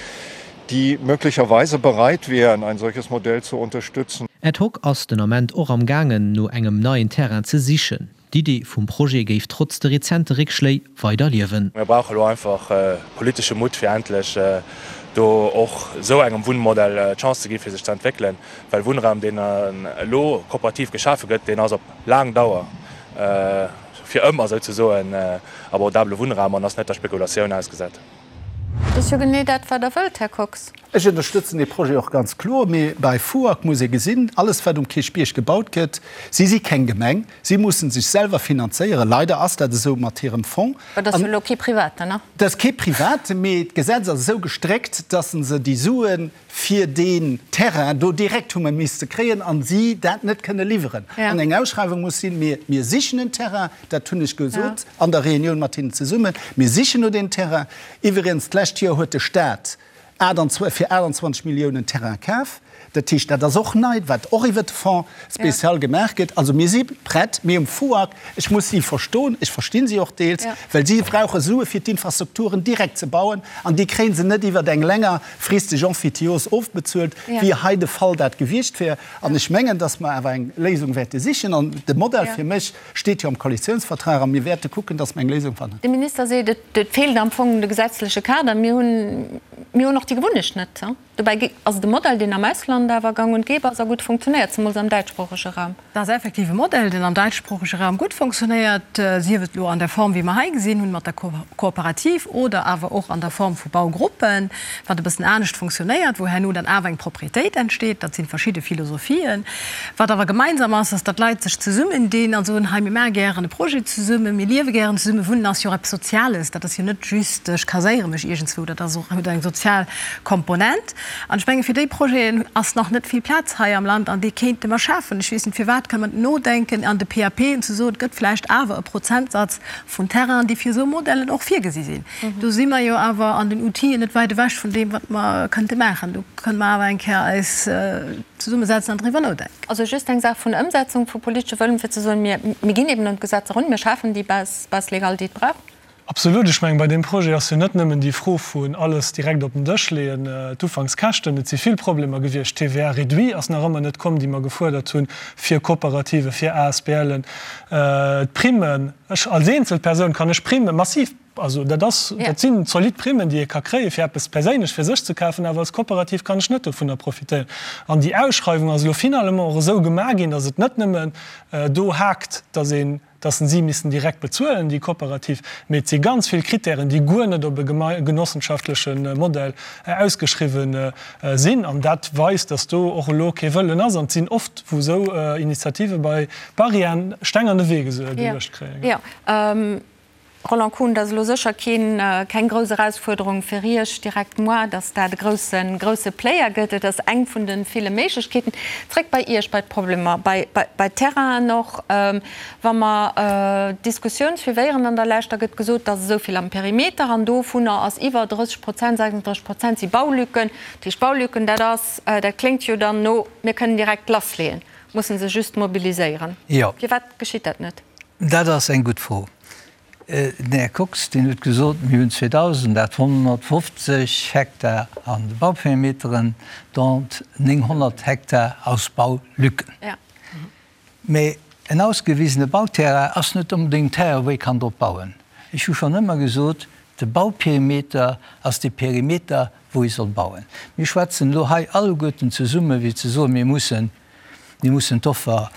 die möglicherweise bereit wären, ein solches Modell zu unterstützen. Ad hoc ass den Ament och am gaangen, no engem neien Terrain ze sichen. D'Idee vum Projet géif trotz de rezente Réckschléi weider liewen. Mir brauche elo einfach politesche Mutt, fir endlech do och esou engem Wunnmodell d'Chance ze gi fir sech ze entwéckelen, well Wunnraum, deen elo kooperativ geschafe gëtt, deen ass op laang Dauer fir ëmmer souzesoen abordabele Wunnraum an ass net der Spekulatioun ausgesat. Dat ass jo genee dat, wat Der wëllt, Här Kox. Ech ënnerstëtzen dee Projet och ganz kloer, mee bei FUAG muss ee gesinn, alles wat um Kierchbierg gebaut gëtt, si si keng Gemeng, si mussen sech selwer finanzéieren, leider ass dat esou mat hirem Fonds. Dat ass jo elo kee Privaten, ne? Dat ass kee Privaten, mee d'Gesetz ass esou gestréckt, dass se déi Sue fir deen Terrain do direkt hu misste kréien a si dat net kënne liwweren an eng Ausschreiwung muss sinn. Mir, mir sichen en Terrain, dat hunn ech gesot an der Reunioun mat hinnen zesummen, mir sichen no deem Terrain. Iwwregens, d'lescht Joer huet de Stat fir 28 Milliounen Terrain kaf. Dat heescht, dat ass och nei, wat och iwwert de Fonds spécial gemaach gëtt. Also mir si prett, mee um FUAG, ech muss si verstoen, ech versti si och deels, well si brauche Sue fir d'Infrastrukturen direkt ze bauen an déi kréie se net iwwert eng länger fristeg Emphytiose ofbezuelt, wéi hei de Fall dat gewiescht wär. An ech mengen, dass mer awer eng Léisung wäerte sichen. An de Modell fir mech steet jo am Koalitionsvertrag a mir wäerte kucken, dass mer eng Léisung fannen. De Minister seet, et feelt am Fong de gesetzleche Kader. Mir hunn, mir hunn och déi Gewunnecht net. Dobäi ass et e Modell, deen am Ausland awer gang und gäbe ass a gutt funktionéiert, zemools am däitschsproochege Raum. Dat ass effektiv e Modell, deen am däitschsproochege Raum gutt funktionéiert, sief et elo an der Form, wéi mer hei gesinn hunn, mat der Kooperativ oder awer och an der Form vu Baugruppen, wat e bëssen anescht funktionéiert, wou herno dann awer eng Proprietéit entsteet. Dat si verschidde Philosophien. Wat awer gemeinsam ass, ass, datt d'Leit sech zesummendinn a soen, hei, mir maache gären e Projet zesummen, mir liewe gären zesummen. Wunnen ass jo och eppes Soziales, dat ass jo net just, ech kaséiere mech iergendswou, dat ass och, huet eng sozial Komponent. An ech menge fir déi Projeten ass nach net vill Plaz hei am Land an déi kéinte mer schafen. Ech weess net firwat, kënne mer nodenken an de PAPen ze soen, et gëtt vläicht awer e Prozentsatz vun Terrainen, déi fir esou Modellen och virgesi sinn. Do si mer jo awer an den Outile net wäit ewech vun deem, wat mer kënnte maachen. Do kënne mer awer eng Kéier eis zesummesetzen an driwwer nodenken. Also just eng Saach vun Ëmsetzung vu politesche Wëllen, fir ze soen, mir ginn eben un d'Gesetz erun, mir schafen déi Base, Base légale, déi et brauch. Absolut. Ech mengen, bei deem Projet ass jo net nëmmen déi Fro vun alles direkt op den Dësch leeën, d'Ufankskäschten. Et si vill Problemer gewiescht. D'TVA réduit ass nach ëmmer net komm, déi mer gefuerdert hunn fir Kooperative, fir ASBLen. D'Primmen, ech als eenzel Persoun kann ech Primme massiv, also dat ass, dat sinn zolidd Primmen, déi ee ka kréien, fir eppes perséinlech fir sech ze kafen, awer als Kooperativ kann ech net dovunner profitéieren. An déi Ausschreiwung ass elo finalement och esou gemaach ginn, datt et net nëmmen do haakt, datt een. Datt si missten direkt bezuelen, déi Kooperativ. Mee et si ganz vill Kritären, déi guer net op e genossenschaftleche Modell ausgeschriwwen sinn. An dat weist, datt do och elo kee Wëllen ass. An et sinn oft, wou esou Initiative bei Barrièren, Steng an de Wee geluecht kréien. Roland Kuhn, Dat ass elo sécher keen, keng grouss Erausfuerderung fir Iech direkt moi, datt dat e grousse, grousse Player gëtt. Et ass eng vun de ville Méiglechkeeten. Zréck bei Iech, bei d'Problemer, bei, bei, bei d'Terrainen och. Wa mer d'Diskussioun suivéieren an der Lescht, da gëtt gesot, et ass esou vill am Perimeter an dovunner ass iwwer 30 Prozent, 36 Prozent si Baulücken. Dat heescht Baulücken, dat ass, dat kléngt jo dann no, mir kënnen direkt lassleeën, musse se just mobiliséieren. Firwat geschitt dat net? Dat ass eng gutt Fro. Den Här Kox, deen huet gesot, mir hunn 2.850 Hektar an de Bauperimeteren, dont 900 Hektar aus Baulücken. Mä en ausgewisene Bauterrain ass net onbedéngt en Terrain, wou ee kann drop bauen. Ech hu schonn ëmmer gesot, de Bauperimeter ass de Perimeter, wou ee soll bauen. Mir schwätzen elo hei alleguerten zesumme fir ze soen, mir mussen, mir mussen d'Offer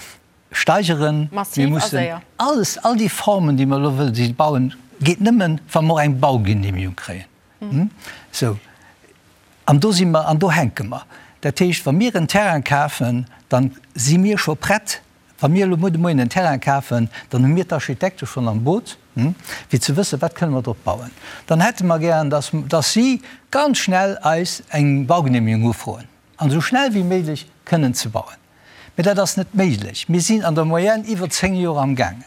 steigeren. Mir mussen alles, all déi Formen, déi mer elo wëllen si bauen, geet nëmmen, wa mer och eng Baugenehmigung kréien. Sou, an do si mer, an do hänke mer. Dat heescht, wa mir en Terrain kafen, da si mir scho prett. Wa mir elo muer de Moien en Terrain kafen, dann hu mir d'Architekte schonn am Boot, fir ze wëssen, wat kënne mer drop bauen. Dann hätte mer gären, dass, dass si ganz schnell eis eng Baugenehmigung ufroen an esou schnell wéi méiglech kënnen ze bauen. Mee dat ass net méiglech. Mir sinn an der Moyenne iwwer 10 Joer am gaangen.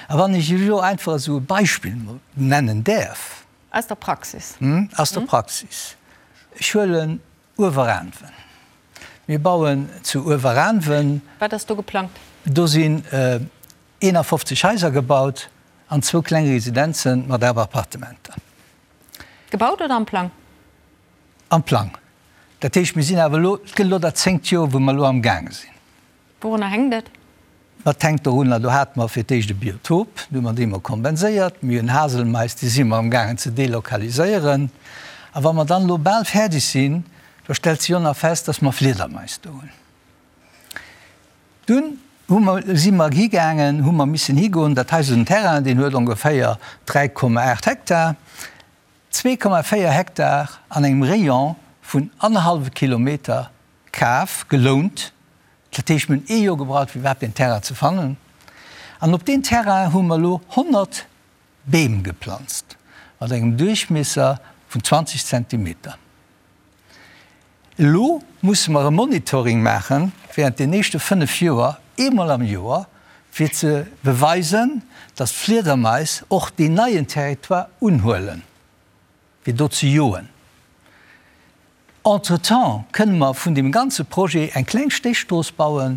A wann ech elo einfach esou e Beispill nennen däerf. Aus der Praxis. Aus der Praxis. Ech huelen Ueweraanwen. Mir bauen zu Ueweraanwen. Wat ass do geplangt? Do sinn 51 Haiser gebaut an zwou kleng Residenze mat awer Appartementer. Gebaut oder am Plang? Am Plang. Dat heescht, mir sinn awer elo, et gëtt elo dat zéngt Joer, wou mer elo amgaange sinn. Wourunner hänkt et? Dat hänkt dorunner, do hate mer fir d'éischt e Biotop, do hu mer dee mol kompenséiert. Mir hunn Haselmais, déi si mer amgaangen ze delokaliséieren. A wa mer dann elo bal fäerdeg sinn, da stellt sech och nach fest, dass mer Fliedermais do hunn. Dunn hu mer, si mer higaangen, hu mer missen higoen, dat hei ass en Terrain, deen huet ongeféier 3,8 Hektar. 2,4 Hektar an engem Rayon vun annerhallwe Kilometer kaf, gelount. Dat heescht, mir hunn ee Joer gebraucht, fir iwwerhaapt deen Terrain ze fannen. An op deen Terrain hu mer elo 100 Beem geplanzt, mat engem Duerchmiesser vun 20 Zentimeter. Elo musse mer e Monitoring maache während den éischte 5 Joer, eemol am Joer, fir ze beweisen, dass d'Fliedermais och deen neien Territoire unhuelen, fir do ze joen. Entretemps kënne mer vun deem ganze Projet eng kleng Stéchstrooss baue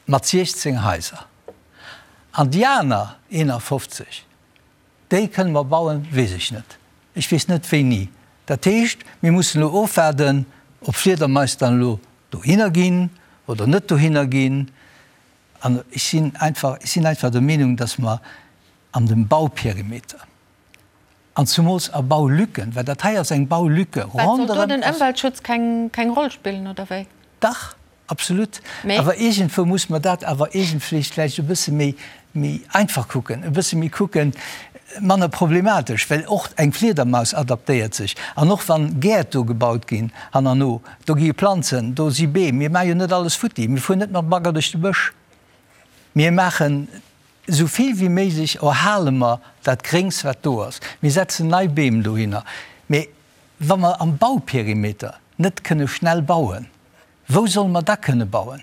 mat 16 Haiser. An déi aner 51, Déi kënne mer bauen, weess ech net. Ech weess net wéini. Dat heescht, mir mussen elo ofwaarden, ob Fliedermais dann elo dohinner ginn oder net dohinner ginn. An ech sinn einfach, ech sinn einfach der Meenung, dass mer an dem Bauperimeter an zumools a Baulücken, well dat hei ass eng Baulücke Wat, soll do ronderëm den Ëmweltschutz keng, keng Roll spillen, oder wéi? Dach, Absolut. Awer iergendwou muss mer dat awer iergendwéi vläicht e bësse méi, méi einfach kucken, e bësse méi kucken, manner problematesch, well och eng Fliedermaus adaptéiert sech. An och wann Gäert do gebaut ginn hannerno, do gi Planzen, do si Beem. Mir maache jo net alles futti. Mir fueren net mat Bagger duerch de Bësch. Mir maachen esou vill wéi méiglech, erhale mer dat Gréngs, wat do ass. Mir setzen nei Beem dohinner. Mee wa mer am Bauperimeter net kënne schnell bauen, Wou solle mer da kënne bauen?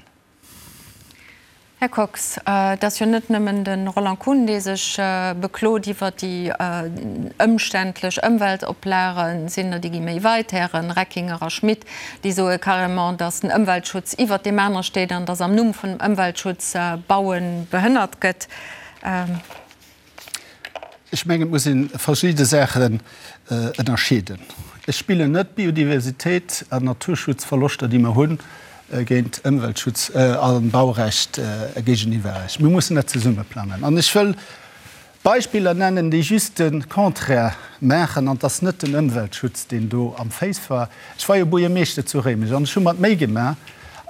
Här Kox, et ass jo net nëmmen de Roland Kuhn, dee sech beklot iwwer déi ëmständlech Ëmweltoplagen. Sinn der, déi gi méi weit, Häre Reckinger a Schmit, déi soe carrément, datt den Ëmweltschutz iwwert deem anere steet an datt am Numm vun dem Ëmweltschutz Baue behënnert gëtt. Ech mengen, et muss ee verschidde Saachen ënnerscheeden. Ech spillen net Biodiversitéit an Naturschutzverloschter, déi mer hunn, géint Ëmweltschutz a Baurecht géigeniwwer. Mir mussen dat zesumme plangen. An ech wëll Beispiller nennen, déi just de Contraire maachen. An et ass net den Ëmweltschutz, deen do am Féiss war. Ech war jo Buergermeeschter zu Réimech an ech hu mer d'Méi gemaach.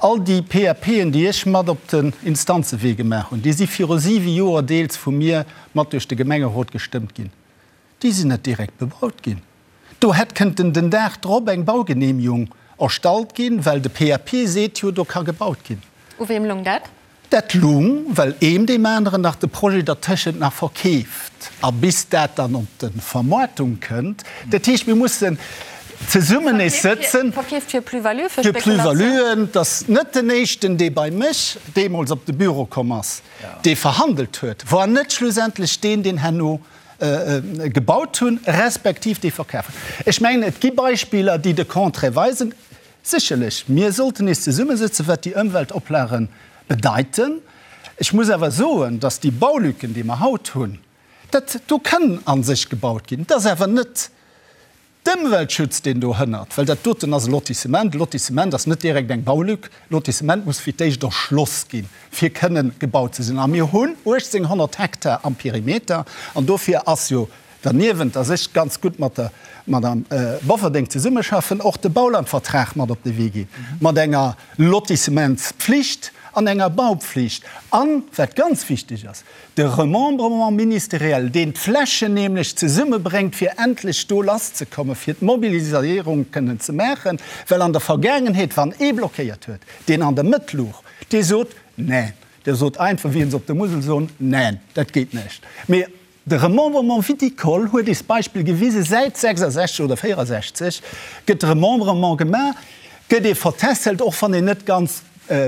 All déi PAPen, déi ech mat op den Instanzewee gemaach hunn, déi si viru siwe Joer deels vu mir mat duerch de Gemengerot gestëmmt ginn, déi sinn net direkt bebaut ginn. Do hätt kënnten den Dag drop eng Baugenehmigung erstallt ginn, well de PAP seet jo, do ka gebaut ginn. U weem lung dat? Dat lung, well eem deem aneren nach de Projet dertëschent nach verkeeft a bis dat dann op de Vermoartung kënnt. Dat heescht, mir mussen zesummen nees sëtzen. Verkeeft fir Plus-value, fir Spekulatioun? Fir Plus-valuen. Et ass net den éischten, dee bei mech deemools op de Büro komm ass, dee verhandelt huet, war net schlussendlech deen, deen herno gebaut hunn, respektiv dee verkaf hunn. Ech mengen, et gi Beispiller, déi de Contraire weisen. Sécherlech, mir sollten nees zesummesëtzen, wat déi Ëmweltoplage bedeiten. Ech muss awer soen, dass déi Baulücken, déi mer haut hunn, dat do kann a sech gebaut ginn. Et ass awer net d'Ëmweltschutz, deen do hënnert, well dat doten ass e Lotissement. E Lotissement ass net direkt eng Baulück. E Lotissement muss fir d'éischt erschloss ginn, fir kënnen gebaut ze sinn. A mir hunn 1.800 Hektar am Perimeter an dofir ass jo Derniewent, dass ech ganz gutt mat der Madame Bofferding zesummeschaffen, och de Baulandvertrag mat op de Wee ginn, mat enger Lotissementspflicht an enger Baupflicht an, wat ganz wichteg ass, de Remembrement ministériel, deen d'Flächen nämlech zesummebréngt, fir endlech do lasszekommen, fir d'Mobilisierung kënnen ze maachen, well an der Vergaangenheet, wann ee blockéiert huet, deen an der Mëtt luch, dee sot, Neen, dee sot einfach, wéi se op der Musel soen, Neen, dat geet näischt. Mee De Remembrement viticole huet eis Beispill gewisen, säit 66 oder 64 gëtt Remembrement gemaach, gëtt ee vertässelt, och wann een net ganz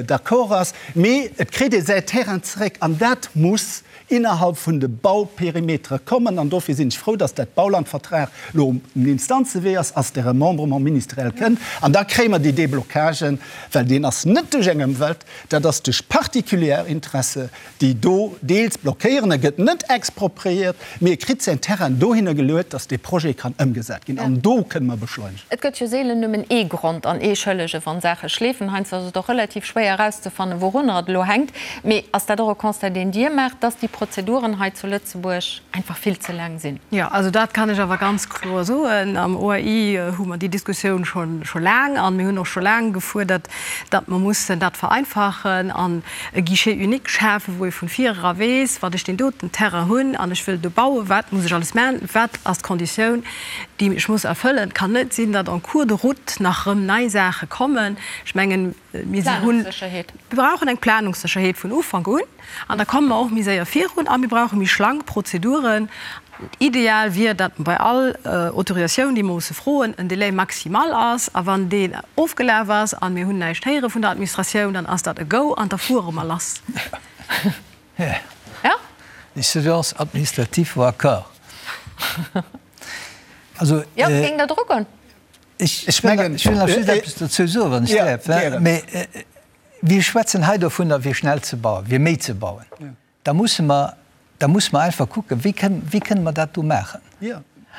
d'accord ass, mee et kritt ee säi Terrain zeréck an dat muss innerhalb vun de Bauperimetere kommen an dofir sinn ech frou, dass dat Baulandvertrag elo um Instanzewee ass, ass de Remembrement ministériel kënnt an da kréie mer déi Déblocagen, well deen ass net duerch eng Ëmwelt, dat ass duerch particulier Interesse déi do deels blockéieren. E gëtt net expropriéiert, mee e kritt säin Terrain dohinner geluet, dass dee Projet kann ëmgesat ginn. An do kënne mer beschleunegen. Et gëtt jo seelen nëmmen ee Grond an ee Schëllege wann Saache schleefen. Heiansdo ass et och relativ schwéier erauszefannen, wourunner et elo hänkt. Mee ass dat och e Constat, deen Dir maacht, dass déi Prozeduren hei zu Lëtzebuerg einfach vill ze laang sinn? Jo, also dat kann ech awer ganz kloer soen. Am OAI hu mer déi Diskussioun scho laang an mir hunn och scho laang gefuerdert, datt mer mussen dat vereinfachen an e Guichet unique schafen, wou ee vun vir era weess, wann ech deen doten Terrain hunn an ech wëll do bauen, wat muss ech alles maachen, wat ass d'Konditioun, déi ech muss erfëllen. Et kann net sinn, datt en cours de route nach erëm nei Saache kommen. Ech mengen, mir si hunn, mir brauchen eng Planungssécherheet vun Ufank un an da komme mer och méi séier virun a mir brauche méi schlank Prozeduren. Ideal wier, datt bei all Autorisatioun, déi mer musse froen, en Délai maximal ass. A wann deen ofgelaf ass a mir hunn näischt héiere vun der Administratioun, dann ass dat e Go an da fuere mer lass. Ja? Les surveillances administratives vont à corps. Also, Jo, géing Der dru goen? Ech mengen, ech wëll nach just eppes dozou soen, wann ech däerf. Mee mir schwätzen hei dovunner, fir schnell ze bauen, fir méi ze bauen. Da musse mer, da musse mer einfach kucken, wéi kënnen, wéi kënnen mer dat do maachen.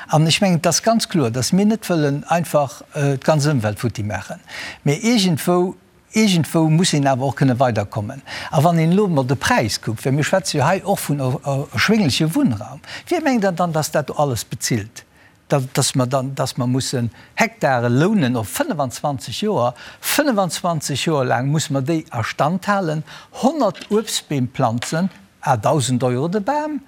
An ech mengen, et ass ganz kloer, datt mir net wëllen einfach d'ganz Ëmwelt futti maachen, mä iergendwou, iergendwou muss een awer och kënne weiderkommen. A wann een elo emol de Präis kuckt, well mir schwätze jo hei och vun erschwéngleche Wunnraum, wie mengt Der dann, datt dat do alles bezilt? dass mer dann, dass mer mussen Hektare lounen op 25 Joer, 25 Joer laang musse mer déi a Stand halen, 100 Uebstbeem planzen à 1.000 Euro de Bam,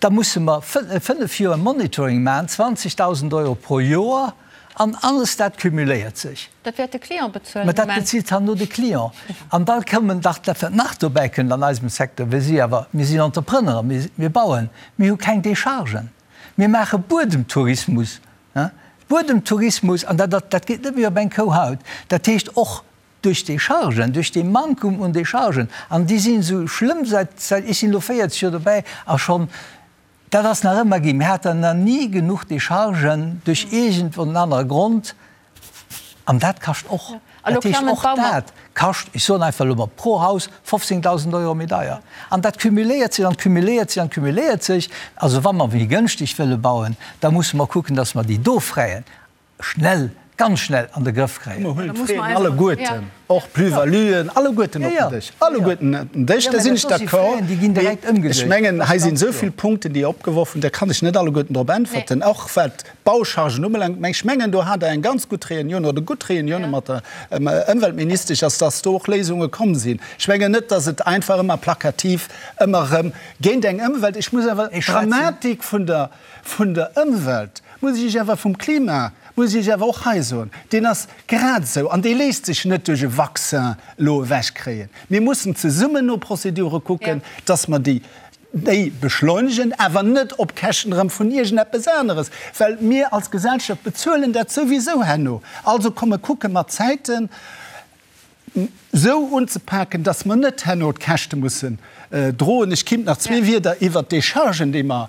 da musse mer 5 Joer Monitoring maachen, 20.000 Euro pro Joer, an alles dat cumuléiert sech. Dat wäert de Client bezuelen. Mä dat bezilt herno de Client. An da kommen dach, dat wat nach dobäi kënnt an eisem Secteur, wir si awer, mir sinn Entrepreneuren, mir bauen, mir hu keng Déchargen. Mir maache Buedemtourismus, Buedemtourismus, an dat, dat geet net méi op eng Kou haut. Dat heescht och duerch d'Déchargen, duerch dee Mankum un Déchargen, an déi sinn esou schlëmm säit, säit, ech sinn elo 40 Joer dobäi a schonn, dat ass nach ëmmer ginn, mir haten nach ni genuch Déchargen duerch iergend en anere Grond. An dat kascht och. Dat heescht, och dat kascht, ech soen einfach elo mol, pro Haus 15.000 Euro méi deier. An dat cumuléiert sech an cumuléiert sech an cumuléiert sech. Also wa mer méi gënschteg wëlle bauen, da musse mer kucken, dass mer déi do Fräien schnell. ganz schnell an de Grëff kréien. Mer huelen d'Fraisen alleguerten, och d'Plus-valuen, alleguerten op den Dësch, alleguerten op den Dësch, da sinn ech d'accord. Mee ech mengen, hei sinn esou vill Punkten, déi opgeworf hunn, da kann ech net alleguerten drop äntwerten, och wat d'Bauchargen ubelaangt. Mä ech mengen, do hat Der eng ganz gutt Reunioun oder gutt Reunioune mat der Ëmweltministesch, ass, dass do och Léisunge komm sinn. Ech mengen net, dass et einfach ëmmer plakativ ëmmer erëm géint eng Ëmwelt, ech muss awer d'Dramatik vun der, vun der Ëmwelt, muss ech Iech awer, vum Klima, muss ech Iech awer och hei soen, deen ass grad esou an dee léisst sech net duerch e Vaccin elo ewechkréien. Mir mussen zesummen no Prozedure kucken, dass mer déi, déi beschleunegen, awer net op Käschten erëm vun iergendeppes aneres, well mir als Gesellschaft bezuelen dat souwisou herno. Also komme kucke mer d'Zäiten esou unzepaken, dass mer net herno d'Käschte mussen droen. Ech kéint nach zwee Wierder iwwert d'Déchargen, déi mer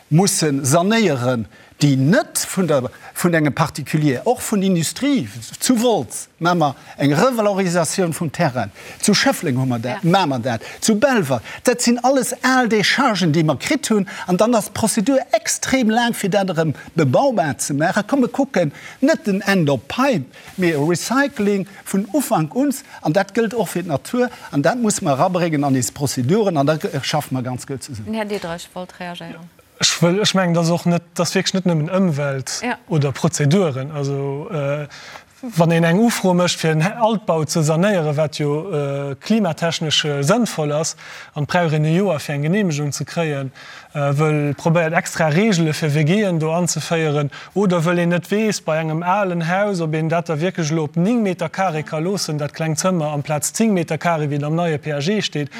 musse sanéieren, déi net vun der, vun engem Particulier, och vun Industrie, zu Wolz maache mer eng Revalorisatioun vum Terrain, zu Schëffleng hu mer dat, maache mer dat, zu Belval, dat sinn alles al Déchargen, déi mer kritt hunn, an dann ass d'Prozedur extrem laang, fir dat erëm bebaubar ze maachen. Komm, mir kucken net den End of Pipe, mee e Recycling vun Ufank un, an dat gëllt och fir d'Natur, an dat musse mer erabréngen an eis Prozeduren, an da schaffe mer ganz gutt zesummen. Den Här Diderich wollt reagéieren. Ech wëll, ech mengen, dat ass och net, dat ass wierklech net nëmmen Ëmwelt oder Prozeduren. Also wann een eng Ufro mécht, fir en Altbau ze sanéieren, wat jo klimatechnesch sënnvoll ass, an et brauch een e Joer, fir eng Geneemegung ze kréien, wëll probéiert extra Reegele fir WGen do anzeféieren, oder wëll een net weess bei engem alen Haus, ob een dat da wierklech elo op 9 Meter carré ka loossen, dat klengt Zëmmer, amplaz 10 Meter carré, wéi et am neie PAG steet.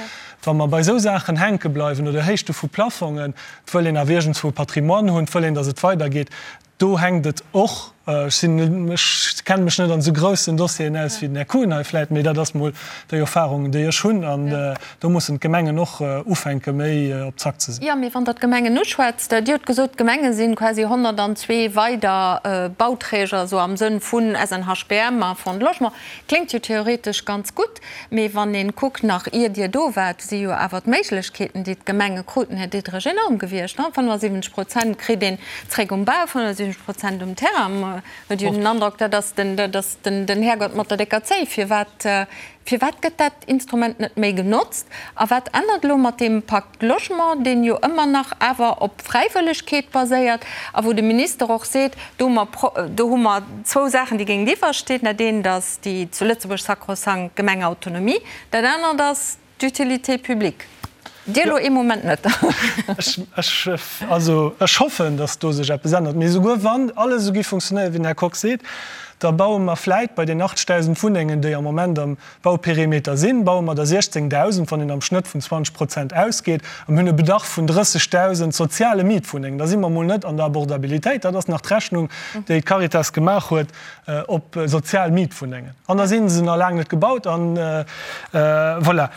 Wa mer bei esou Saachen hänke bleiwen, oder Héichte vu Plafongen, et wëll een awer iergendswou e Patrimoine hunn, et wëll een, datt et weidergeet, do hänkt et och. Ech sinn, ech kenne mech net an esou groussen Dossieren aus wéi den Här Kuhn hei vläit, mee dat ass mol déi Erfahrung, déi ech hunn. An do mussen d'Gemengen och ufänke méi op Zack ze sinn. Jo, mee wann Der d'Gemengen uschwätzt, Dir hutt gesot, d'Gemenge si quasi 102 weider Bauträger, esou am Sënn vun SNHBM a Fonds de Logement. Kléngt jo theoretesch ganz gutt. Mee wann een kuckt, nach ier Dir do waart, si jo awer d'Méiglechkeeten, déi d'Gemenge kruten, Här Diderich, enorm gewiescht. 75 Prozent kritt een zréck um Bau, 75 Prozent um Terrain. Mer huet jo den Androck, dat ass den, dat ass den, den Härgott mat der décker Zéi. Firwat, firwat gëtt dat Instrument net méi genotzt? A wat ännert elo mat deem Pacte Logement, deen jo ëmmer nach awer op Fräiwëllegkeet baséiert a wou de Minister och seet, do hu mer, do hu mer zwou Saachen, déi géintiwwer stinn, dat eent ass déi zu Lëtzebuerg sakrosankt Gemengeautonomie, dat anert ass d'Utilité publique. Dir elo ee Moment net. Ech, also ech hoffen, datt do sech eppes ännert. Mee esouguer wann alles esou géif funktionéieren, wéi den Här Kox seet, da baue mer vläit bei den 80.000 Wunnengen, déi am Moment am Bauperimeter sinn, baue mer der 16.000, wann een am Schnëtt vun 20 Prozent ausgeet, a mir hunn e Bedarf vun 30.000 soziale Mietwunnengen. Da si mer emol net an der Abordabilitéit. Dat ass nach d'Rechnung, déi d'Caritas gemaach huet op sozial Mietwunnengen. An da si se nach laang net gebaut. An voilà.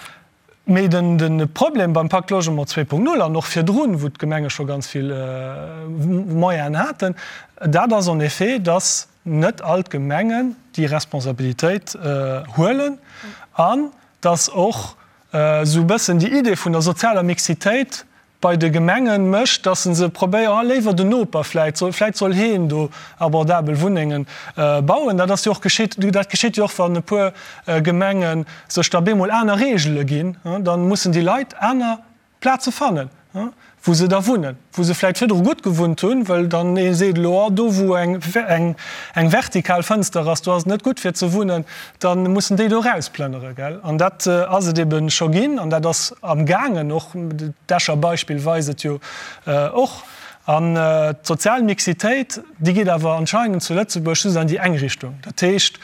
Mee de Problem beim Pacte Logement 2.0 an och virdrun, wou d'Gemenge scho ganz vill Moyenen haten, dat ass en effet, dass net all d'Gemengen déi Responsabilitéit huelen an dass och esou e bëssen déi Idee vun der sozialer Mixitéit bei de Gemengen mécht, dass se se probéieren, ah léiwer den Noper vläit, soll, vläit soll heen do abordabel Wunnengen bauen. Dat ass jo och geschitt, dat geschitt jo och, wann e puer Gemenge sech da bemol aner Regele ginn, da mussen déi Leit aner Plaze fannen, wou se da wunnen, wou se vläit virdru gutt gewunnt hunn, well dann ee seet elo, oh do wou eng eng vertikal Fënster ass, do ass et net gutt fir ze wunnen, da mussen déi do erausplënnere, gell. An dat ass et ebe scho ginn an dat ass amgaangen, och d'Escher Beispill weist et jo och. An d'sozial Mixitéit, déi geet awer anscheinend zu Lëtzebuerg just an déi eng Richtung. Dat heescht,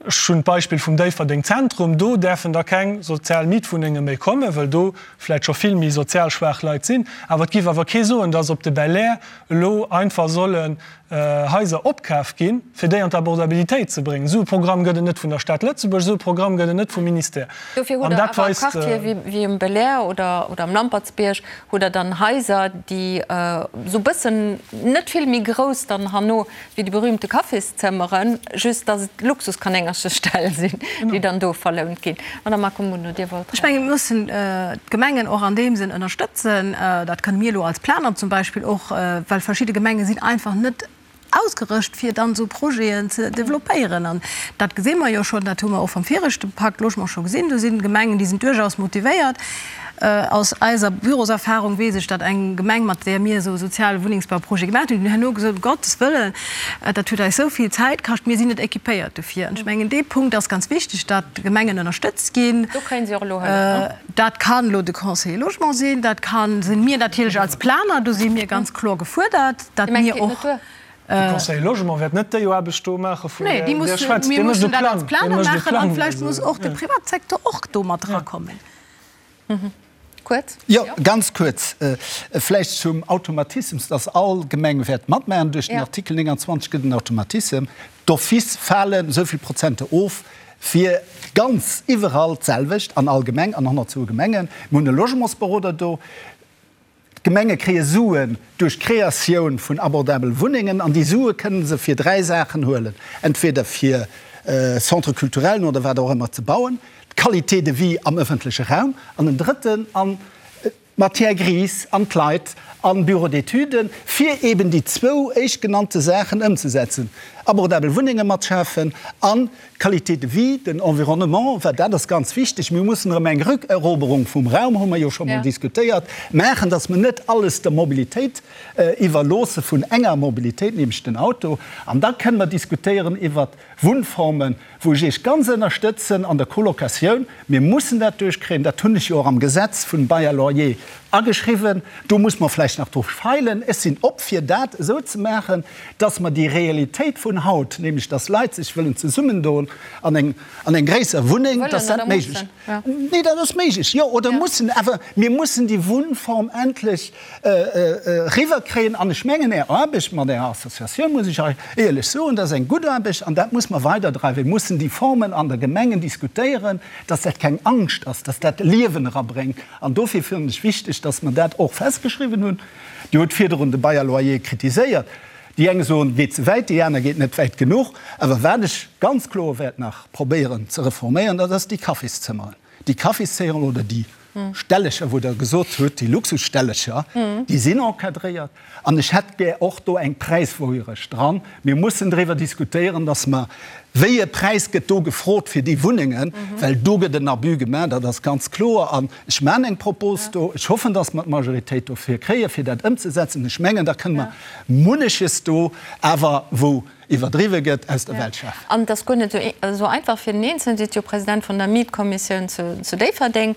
Ech hunn d'Beispill vum Déifferdeng Zentrum, do däerfen da keng sozial Mietwunnenge méi kommen, well do vläicht scho vill méi sozial schwaach Leit sinn. Awer et géif awer kee soen, dass op de Belair elo einfach sollen Haiser opkaf ginn, fir déi an d'Abordabilitéit ze bréngen. Esou e Programm gëtt et net vun der Stad Lëtzebuerg, esou e Programm gëtt et net vum Ministère. Dofir hutt An Der dat awer weist. Quartiere wéi um Belair oder am Lampertsbierg hutt Der dann Haiser, déi esou e bëssen net vill méi grouss dann herno Wéi déi berühmte Kaffiszëmmeren, just dass et Luxuskanéngercheställ sinn, déi dann do verlount ginn. Madame Accombundo, Dir wollt. Ech mengen, mir mussen d'Gemengen och an deem Sënn ënnerstëtzen. Dat kënne mir elo als Planer zum Beispill och, well verschidde Gemenge sinn einfach net. Ausgerëscht fir dann esou Projeten ze développéieren. An dat gesi mer jo schonn, dat hu mer och vam viregte Pakt Logement scho gesinn, do sinn Gemengen, déi sinn duerchaus motivéiert. Aus eiser Büroserfahrung weess ech, datt eng Gemeng, mat där mir esou e soziale Wunnengsbauprojet gemaach hunn, déi hunn herno gesot, um Gottes Wëllen, dat huet eis esou vill Zäit kascht, mir sinn net équipéiert dofir. An ech mengen, dee Punkt ass ganz wichteg, datt d'Gemengen ënnerstëtzt ginn. Do kréien si och elo Hëllef, ne? Dat kann elo de Conseiller Logement sinn, dat kann, sinn mir natierlech als Planer, do si mir ganz kloer gefuerdert, datt mir och. De Conseiller Logement wäert net déi Aarbecht do maache vun där Dir schwätzt. Mir mussen dat als Planer maachen an vläicht muss och de Privatsecteur och do mat erakommen. Kuerz. Jo, ganz kuerz. Vläicht zum Automatismus, dass all Gemeng wäert matmaachen. Duerch den Artikel 29 gëtt en Automatissem. D'office falen esou vill Prozente of. Fir ganz iwwerall d'selwecht, an all Gemeng, an 102 Gemengen. Mir hunn e Logementsberoder do. D'Gemenge kréie Suen duerch d'Kreatioun vun abordabel Wunnengen an déi Sue kënne se fir 3 Saachen huelen, entweder fir Centres culturellen oder wat och ëmmer ze bauen, d'Qualité de vie am ëffentleche Raum an en drëtten an d'Matière grise an d'Leit an Bureaux d'études, fir eben déi zwou éischtgenannte Saachen ëmzesetzen, abordabel Wunnenge mat schafen an d'Qualité de vie, den Environnement, well dat ass ganz wichteg. Mir mussen erëm eng Rückeroberung vum Raum, hu mer jo scho mol diskutéiert, maachen, dass mer net alles der Mobilitéit iwwerloosse vun enger Mobilitéit, nämlech den Auto. An da kënnen mer diskutéieren iwwert Wunnformen, wou ech Iech ganz ënnerstëtzen an der Colocatioun. Mir mussen dat duerchkréien. Dat hunn ech jo och am Gesetz vun Bail à loyer ageschriwwen. Do muss mer vläicht nach dru feilen. Ech sinn op, fir dat esou ze maachen, dass mer déi Realitéit vun haut, nämlech dass Leit sech wëllen zesummendoen an eng, an eng gréisser Wunneng, dass dat méiglech. Nee, dat ass méiglech, jo, oder mussen. Awer mir mussen déi Wunnform endlech eriwwerkréien. An ech mengen, Är Aarbecht mat Ärer Associatioun, muss ech hei éierlech soen, dat ass eng gutt Aarbecht an dat muss mer weiderdreiwen. Mir mussen déi Formen an der Gemengen diskutéieren, dass dat keng Angscht ass, dass dat Liewen erabréngt. An dofir fannen ech wichteg, dass mer dat och festgeschriwwen hunn. Dir hutt virdrun de Bail à loyer kritiséiert. Déi eng soen, geet ze wäit, déi aner geet net wäit genuch. Awer wat ech ganz kloer wäert nach probéieren ze reforméieren, dat ass déi Cafészëmmeren. Déi Cafészéieren oder déi Stellecher, wou Der gesot hutt, déi Luxusstellecher, déi sinn encadréiert. An ech hätt gär och do eng Präiswouerecht dran. Mir mussen driwwer diskutéieren, dass mer, wéi e Präis gëtt do gefrot fir déi Wunnengen, well do gëtt en Abus gemaach, dat ass ganz kloer. An ech maachen eng Propos do. Ech hoffen, dass mer d'Majoritéit dofir kréien, fir dat ëmzesetzen. Ech mengen, da kënne mer munneches do awer, wou iwwerdriwwe gëtt, aus der Welt schafen. An et ass guer net esou einfach fir den Eenzelnen. Dir sidd jo President vun der Mietkommissioun zu Déifferdeng.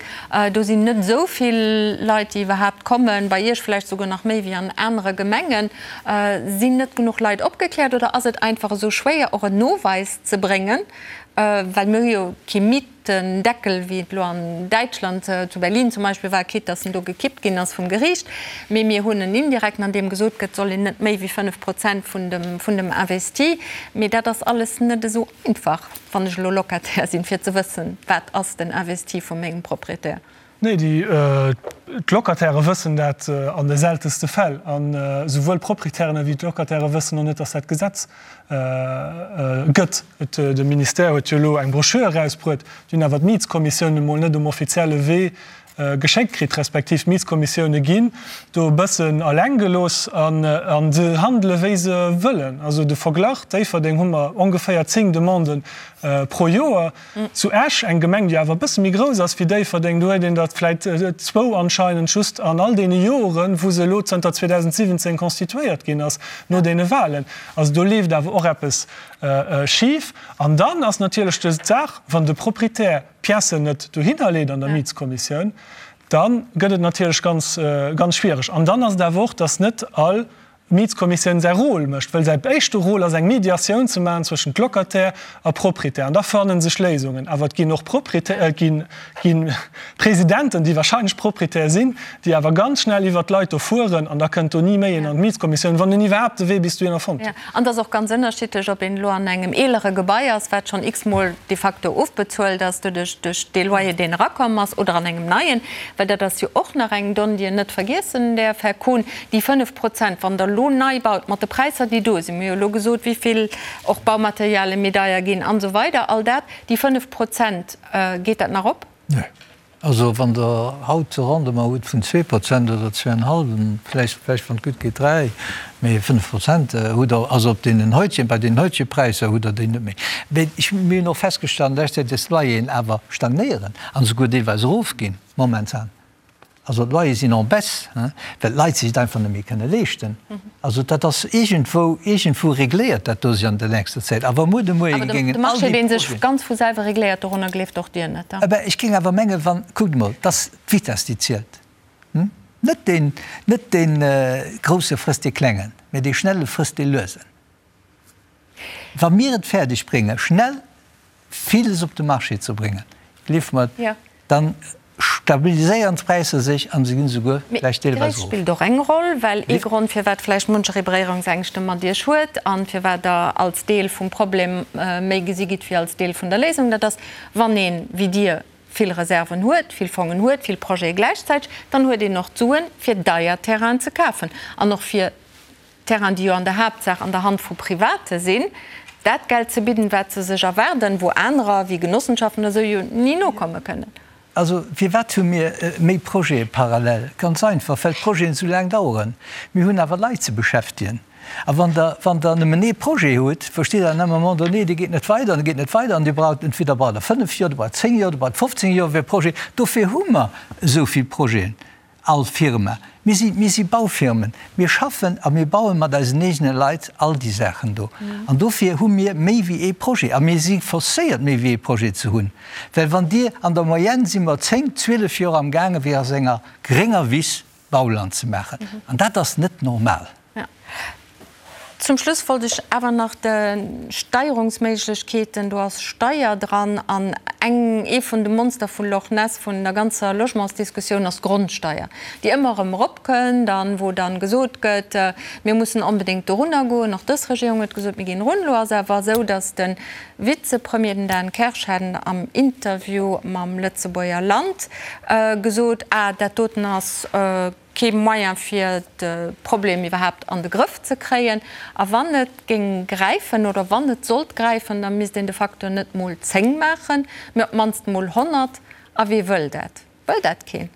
Do sinn net esou vill Leit, déi iwwerhaapt kommen, bei Iech vläicht souguer nach méi wéi an anere Gemengen. Sinn net genuch Leit opgekläert oder ass et einfach esou schwéier, och en Noweis ze bréngen, well mir hu jo kee Miet Den Deckel, wéi et elo an Däitschland, zu Berlin zum Beispill war, quitte dass en do gekippt ginn ass vum Geriicht, mee mir hunn en indirekten, an deem gesot gëtt, soll een net méi wéi 5 Prozent vun dem, vun dem Investi. Mee dat ass alles net esou einfach, wann ech elo Locataire sinn, fir ze wëssen, wat ass den Investi vu mengem Propriétaire. Nee, déi, d'Locatairë wëssen dat an de seltenste Fäll. An esouwuel d'Proprietären ewéi d'Locatairë wëssen och net, dass dat Gesetz gëtt. Et, de Ministère huet jo elo eng Broschür erausbruet, déi hunn awer d'Mietskommissiounen emol net um offizielle Wee geschéckt kritt, respektiv d'Mietskommissioune ginn do e bëssen eleng gelooss an se handele wéi se wëllen. Also de Verglach, Déifferdeng hu mer ongeféier 10 Demanden pro Joer. Zu Esch, eng Gemeng, déi awer e bësse méi grouss ass wéi Déifferdeng, do huet een der vläit zwou anscheinend just an all deene Joren, wou se elo zënter 2017 constituéiert ginn ass, no deene Wahlen. Also do leeft awer och eppes schif. An dann ass natierlech d'Saach, wann de Proprietär d'Piècen net dohinner leet an der Mietskommissioun, da gëtt et natierlech ganz, ganz schwiereg. An dann ass et awer och, dass net all D'Mietskommissioun säi Rôle mécht, well säi éischte Rôle ass eng Mediatioun ze maachen zwëschent Locataire a Proprietär an da fanne sech Léisungen. Awer et ginn och Proprietär, et gi Presidenten, déi wahrscheinlech Proprietär sinn, déi awer ganz schnell iwwert d'Leit do fueren an da kënnt do ni méi een an d'Mietskommissioun, wann en iwwerhaapt de Wee bis dohinner fonnt huet. An et ass och ganz ënnerschiddlech, ob een elo an engem eelere Gebai ass, wat schonn x-mol de facto ofbezuelt ass doduerch duerch dee Loyer, deen erakomm ass, oder an engem neien, well dat ass jo och nach eng Donn, déi een net vergiessen däerf, Här Kohn, Déi 5 Prozent, wann Der elo nei baut, mat de Präisser, déi do sinn, mir hu jo elo gesot, wéi vill och Baumaterialie méi deier ginn an esou weider, all dat, déi 5 Prozent, geet dat nach op? Nee. Also wann Der haut e Rendement hutt vun 2% oder zweieinhalben, vläicht, vläicht wann et gutt geet 3, mee 5% hutt Der, also op deenen heutigen, bei deenen heutigen Präisser hutt Der déi net méi. Mee ech, mir hunn och festgestallt an leschter Zäit, dass d'Loyeren awer stagnéieren an esouguer deelweis erofginn momentan. Also d'Loyere sinn en baisse, well d'Leit sech et einfach net méi kënne leeschten. Also dat ass iergendwou, iergendwou regléiert dat do sech an der nächster Zäit. A wa muer de Moie Awer géingen de all Marché, déi dee sech Projeten. ganz vu selwer regléiert, dorunner gleeft och Dir net, da? Ebe, ech géing awer mengen, wann, kuckt emol, et ass d'Vitesse, déi zielt. Net deen, net dee Grousse frësst dee Klengen, mä dee Schnelle frësst dee Luesen. Wa mir et fäerdeg bréngen, schnell villes op de Marché ze bréngen, gleeft mer, da stabiliséieren d'Präisser sech a se ginn esouguer Mee vläicht deelweis d'Gréisst erof. spillt och eng Roll, well ee Grond, firwat vläicht muncheree Beréierungsängschte mat Iech huet a firwat Der als Deel vum Problem méi gesi gitt wéi als Deel vun der Léisung, dat ass, wann een, wéi Dir, vill Reserven huet, vill Fongen huet, vill Projete gläichzäiteg, dann huet een och d'Suen, fir deier Terrainen ze kafen an och fir Terrainen, déi jo an der Haaptsaach an der Hand vu Private sinn, dat Geld ze bidden, wat se sech erwaarden, wou anerer, wéi Genossenschaften oder esou, jo ni nokomme kënnen. Also firwat hu mir méi Projete parallel? Ganz einfach, well d'Projeten esou laang daueren. Mir hunn awer Leit ze beschäftegen. A wann Der, wann Der nëmmen ee Projet hutt, versteet Der, an un moment donné, dee geet net weider an dee geet net weider an Dir braucht, entweder braucht Der fënnf Joer, Dir braucht zéng Joer, Dir braucht 15 Joer fir e Projet. Dofir hu mer esou vill Projeten. All Firma. Mir si, mir si Baufirmen. Mir schaffen a mir baue mat eisen eegene Leit all déi Saachen do. An dofir hu mir méi wéi ee Projet. A mir si forcéiert, méi wéi ee Projet ze hunn. Well wann Dir, an der Moyenne si mer zéng, 12 Joer amgaangen, fir aus enger grénger Wiss Bauland ze maachen. An dat ass net normal. Zum Schluss wollt ech awer nach de Steierungsméiglechkeeten, do ass Steier dran, an eng, ee vun de Monster vu Loch Ness vun der ganzer Logementsdiskussioun ass d'Grondsteier, déi ëmmer erëm eropkënnt an wou dann gesot gëtt, mir mussen onbedéngt dorunner goen. Och dës Regierung huet gesot, mir ginn erun. Elo ass awer esou, datt de Vizepremier, den Dan Kersch, hat am Interview mam Lëtzebuerger Land gesot, ah, dat doten ass, Kee Moyen fir de Problem iwwerhaapt an de Grëff ze kréien. A wann et géing gräifen oder wann et sollt gräifen, da misst een de facto net mol 10 maachen, mee op d'mannst mol 100. A wee wëll dat? Wëll dat keen?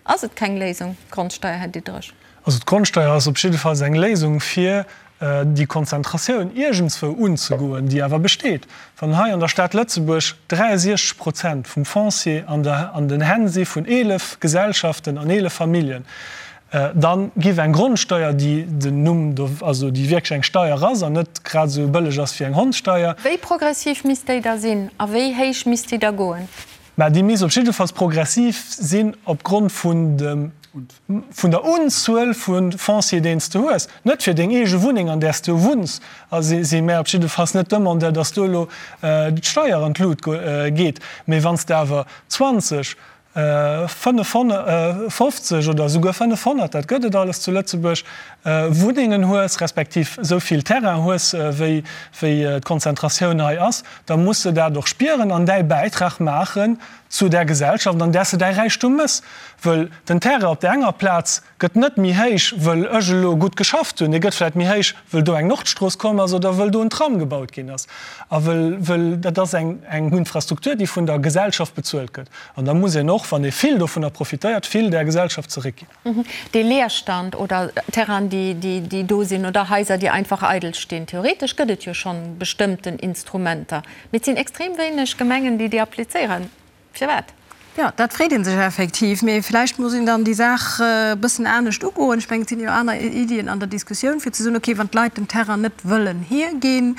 Ass et keng Léisung, d'Grondsteier, Här Diderich? Also d'Grondsteier ass op jiddefalls eng Léisung fir déi Konzentratioun iergendswou unzegoen, déi awer besteet. Wann hei an der Stad Lëtzebuerg 63 Prozent vum Foncier an der an den Hänn si vun 11 Gesellschaften an 11 Familljen, da giff eng Grondsteuer, déi den Numm do, also déi wierklech eng Steier ass an net grad esou bëlleg ass wéi eng Hondssteier, Wéi progressiv misst déi da sinn a wéi héich misst déi da goen? Mä déi misst op jiddefalls progressiv sinn opgrond vun dem, vun der Unzuel vu Foncier, deen s de hues. Net fir deng eege Wunneng, an där s de wunns, a si mär op jiddefalls net Demandeur, dass do elo d'Steier an d'Lut geet. Mee wann s de awer 20, 55 oder esouguer 500, dat gëtt et alles zu Lëtzebuerg, Wunnengen hues, respektiv esou vill Terrain hues, wéi d'Konzentratioun hei ass, da muss se dat och spieren an däi Bäitrag maachen zu där Gesellschaft, an där s de däi Räichtum mëss. Wëll den Terrain op där enger Plaz gëtt net méi héich, wëll ech elo gutt geschafft hunn, dee gëtt vläicht méi héich, wëll do eng Nordstrooss komm ass oder wëll do en Tram gebaut ginn ass. A wëll, wëll dat ass eng, eng Infrastruktur, déi vun der Gesellschaft bezuelt gëtt. An da muss een och, wann ee vill dovunner profitéiert, vill där Gesellschaft zeréckginn. Dee Leerstand oder Terrainen, déi, déi do sinn oder Haiser, déi einfach eidel stinn, theoretesch gëtt et jo schonn bestëmmten Instrumenter, mee et sinn extrem wéineg Gemengen, déi déi applizéieren. Firwat? Jo, dat freet ee sech effektiv. Mee vläicht muss een dann déi Saach e bëssen anescht ugoen. Ech mengen, et sinn jo aner Iddien an der Diskussioun, fir ze soen, okay, wann d'Leit den Terrain net wëllen hierginn,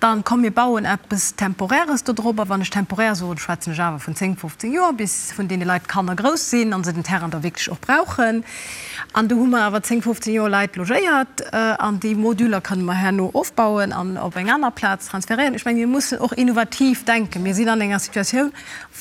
dann komm mir bauen eppes Temporäres do drop. A wann ech temporär soen, schwätzen ech awer vun 10, 15 Joer, bis vun deene Leit d'Kanner grouss sinn a se den Terrain da wierklech och brauchen. An do hu mer awer 10, 15 Joer Leit logéiert an déi Moduler kënne mer herno ofbauen an op eng aner Plaz transferéieren. Ech menge mir mussen och innovativ denken. Mir sinn an enger Situatioun,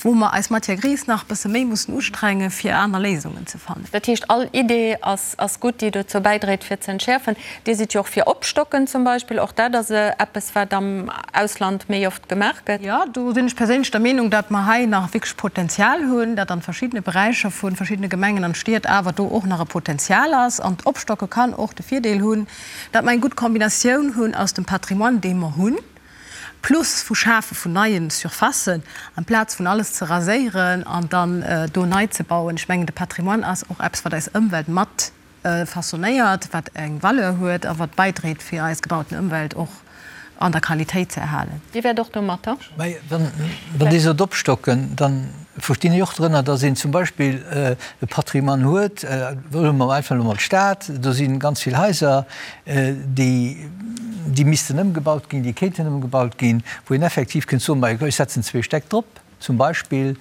wou mer eis Matière grise nach e bësse méi mussen ustrengen, fir aner Léisungen ze fannen. Dat heescht, all Idee ass gutt, déi dozou bäidréit, fir ze entschäerfen. Dir sidd jo och fir Opstocken zum Beispill. Och dat ass eppes, wat am Ausland méi oft gemaach gëtt. Jo, do sinn ech perséinlech der Meenung, datt mer hei nach wierklech Potenzial hunn, datt an verschiddene Beräicher vu verschiddene Gemengen an Stied awer do och nach e Potenzial ass. An d'Opstocke kann och de Virdeel hunn, datt mer eng gutt Kombinatioun hunn aus dem Patrimoine, dee mer hunn. Plus vu Schafe vun neie Surfacen, amplaz vun alles ze raséieren an dann do nei ze bauen. Ech mengen, de Patrimoine ass och eppes, wat eis Ëmwelt mat façonnéiert, wat eng Valeur huet a wat bäidréit, fir eis gebauten Ëmwelt och an der Qualitéit ze erhalen. Dir wäert och domatter. Mä wann Dir sot opstocken, da verstinn ech och drënner, datt een zum Beispill e Patrimoine huet, huele mer einfach elo mol d'Stad, do si ganz vill Haiser, déi, déi missten ëmgebaut ginn, déi kéinten ëmgebaut ginn, wou een effektiv kënnt soen, ma ech setzen zwee Stäck drop zum Beispill,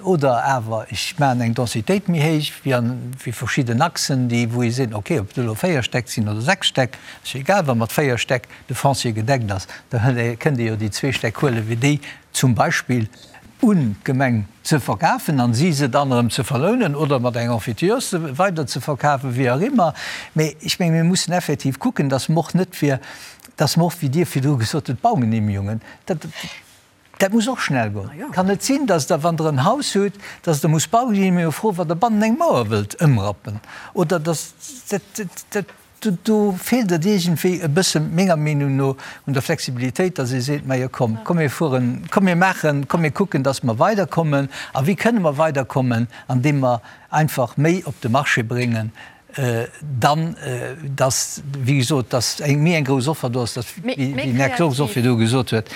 oder awer ech maachen eng Densitéit méi héich wéi an wéi verschidden Achsen, déi wou ee seet, okay, ob et elo véier Stäck sinn oder sechs Stäck, ass jo egal, wa mat véier Stäck de Foncier gedeckt ass, da kënnt ee jo déi zwee Stäck huelen, fir déi zum Beispill un d'Gemeng ze verkafen an si se dann erëm ze verlounen oder mat enger Emphytéose weider ze verkafen, wéi och immer. Mee ech menge mir mussen effektiv kucken, dass mer och net fir, dass mer och, wéi Dir virdru gesot hutt, d'Baugenehmigungen, dat, dat muss och schnell goen. Et kann net sinn, dass Der, wann Der en Haus hutt, dass Der musst Baugenehmigung froen, wann Der bannen eng Mauer wëllt ëmrappen oder dass dat, dat, Do feelt et iergendwéi e bësse menger Meenung no un der Flexibilitéit, dass ee seet, Majo komm, komm mir fueren, komm mir maachen, komm mir kucken, dass mer weiderkommen. A wéi kënne mer weiderkommen? Andeem mer einfach méi op de Marché bréngen, dann, dass, wéi gesot, dass eng méi eng grouss Offer do ass, dass, wéi den Här Kox och virdu gesot huet,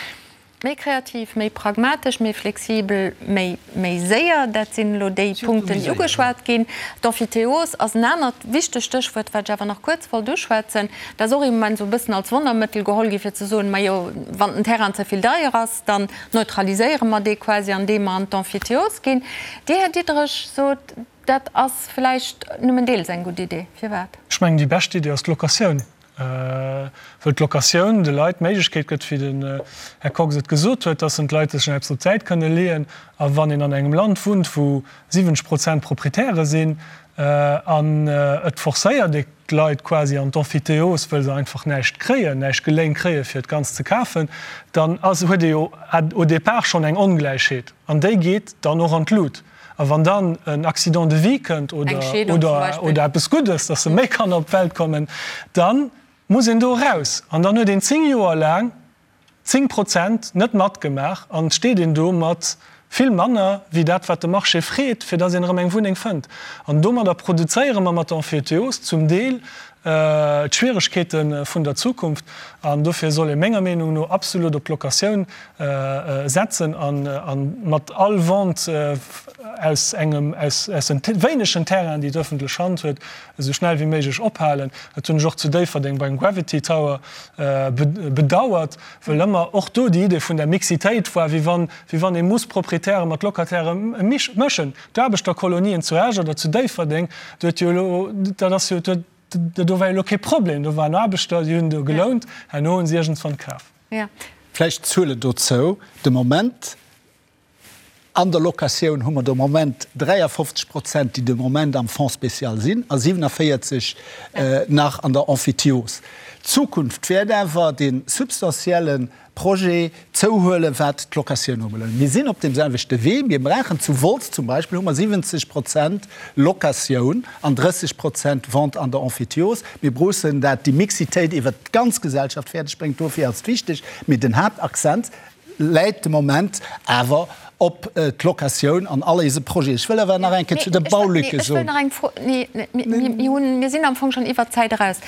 Méi kreativ, méi pragmatesch, méi flexibel, méi méi séier, dat sinn elo déi Punkten, déi ugeschwat ginn. D'Emphytéose ass en anert wichtegt Stéchwuert, wat ech awer nach kuerz wollt uschwätzen. Dat ass och im Moment esou e bëssen als Wonnermëttel geholl gi fir ze soen, majo, wann den Terrain ze vill deier ass, dann neutraliséiere mer dee quasi, andeem mer an d'Emphytéose ginn. Dir, Här Diderich, sot, dat ass vläicht nëmmen deels eng gutt Idee. Firwat? Ech mengen, déi bescht Idee ass d'Locatioun. Wëll d'Locatioun de Leit d'Méiglechkeet gëtt, wéi den Här Kox et gesot huet, dass en d'Leit sech eppes op d'Säit kënne leeën. A wann een an engem Land wunnt, wou 70 Prozent Proprietäre sinn, an et forcéiert ee d'Leit quasi an d'Emphytéose, wëll se einfach näischt kréien, näischt geléint kréien, fir et ganz ze kafen, dann ass, huet ee jo au départ schonn eng Ongläichheet. An déi geet dann och an d'Lut. A wann dann en Accident de vie kënnt oder eppes Guddes, dass se méi Kanner op d'Welt kommen, da muss een do eraus. An dann huet een 10 Joer laang 10 Prozent net matgemaach an et steet een do mat vill manner wéi dat, wat de Marché freet, fir dass een erëm eng Wunneng fënnt. An domadder produzéiere mer mat der Emphytéose zum Deel d'Schwieregkeete vun der Zukunft. An dofir soll ee menger Meenung no absolut op d'Locatioun setzen a mat all Vente aus engem, aus den wéinegen Terrainen, déi d'öffentlech Hand huet, esou schnell wéi méiglech ophalen. Dat hunn ech och zu Déifferdeng beim Gravity Tower bedauert, wëll ëmmer och do déi Idee vun der Mixitéit war, wéi wann, wéi wann ee muss Proprietäre mat Locatairë mëschen. D'Aarbechterkolonien zu Esch oder zu Déifferdeng, do huet jo elo, dat ass jo, do war jo elo kee Problem, do waren Aarbechter, déi hunn do gelount, herno hunn se iergendswann kaf. Vläicht Zuele dozou, De Moment an der Locatioun hu mer de Moment 53 Prozent, déi de Moment am Fonds spécial sinn a 47 nach an der Emphytiose. D'Zukunft wäert awer dee substantielle Projet zouhuelen, wat d'Locatioun ubelaangt. Mir sinn op deem selwechte Wee. Mir brauchen zu Wolz zum Beispill hu mer 70 Prozent Locatioun an 30 Prozent Vente an der Emphytiose. Mir bruussen dat déi Mixitéit iwwert d'ganz Gesellschaft fäerdeg bréngt. Dofir ass et wichteg. Mee den Haaptaccent läit de Moment awer op d'Locatioun an all eise Projeten. Ech wëll awer nach eng Kéier zu de Baulücke soen. Ech wëll nach eng Fro, nee, mir hunn, mir sinn am Fong schonn iwwert d'Zäit eraus.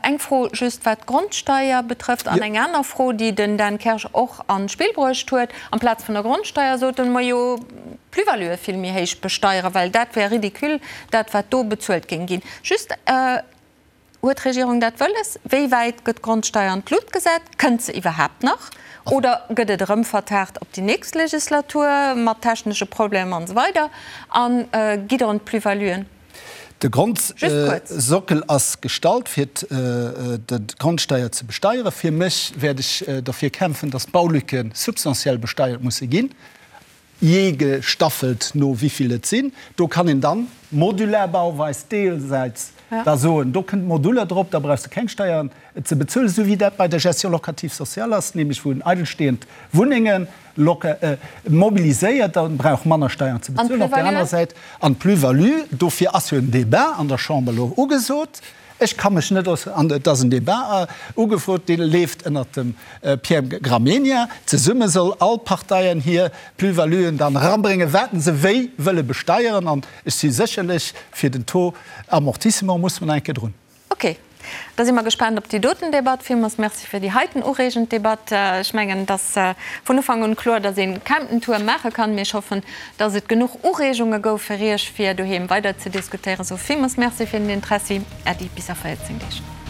Eng Fro just, wat d'Grondsteier betrëfft, an eng aner Fro, déi den Dan Kersch och an d'Spill bruecht huet. Amplaz vun der Grondsteier soten mer jo d'Plus-valuë vill méi héich besteieren, well dat wär ridicule, dat wat do bezuelt géing ginn. Just. Huet d'Regierung dat wëlles? Wéi wäit gëtt d'Grondsteier an d'Lut gesat? Kënnt se iwwerhaapt nach? Oder gëtt et erëm vertaagt op déi nächst Legislatur mat technesche Problemer an esou weider? A gitt Der un d'Plus-valuen? De Grondsockel ass gestallt, fir d'Grondsteier ze besteieren. Fir mech wäert ech derfir kämpfen, dass d'Baulücke substantiell besteiert musse ginn. jee gestaffelt no wivill et sinn. Do kann een dann, modular Bauweis deelsäits da soen, do kënnt Moduler drop, da brauchs de keng Steieren ze bezuelen, esou wéi dat bei der Gestion locative sociale ass, nämlech wou en eidelstehend Wunnenge mobiliséiert, da brauch manner Steieren ze bezuelen. Op där anerer Säit, an d'Plus-value, dofir ass jo en Débat an der Chamber elo ugesot. Ech ka mech net äusseren. An et ass en Débat ugefrot, dee leeft ënnert dem Pierre Gramegna. Zesumme soll all d'Parteien hir Plus-valuen dann erabréngen, wat se wéi wëlle besteieren. An ech si sécherlech fir den Taux amortissement, muss mer nach eng Kéier drun. Ok, da si mer gespaant op déi doten Debatt. Villmools Merci fir déi heiten ureegend Debatt. Ech mengen, et ass vun Ufank un kloer, dass ee Camptentour maache kann. Mee ech hoffen, dass et genuch Ureegunge gouf fir Iech, fir doheem weider ze diskutéieren. Sou, villmools Merci fir den Interessi. Äddi, bis a 14 Deeg.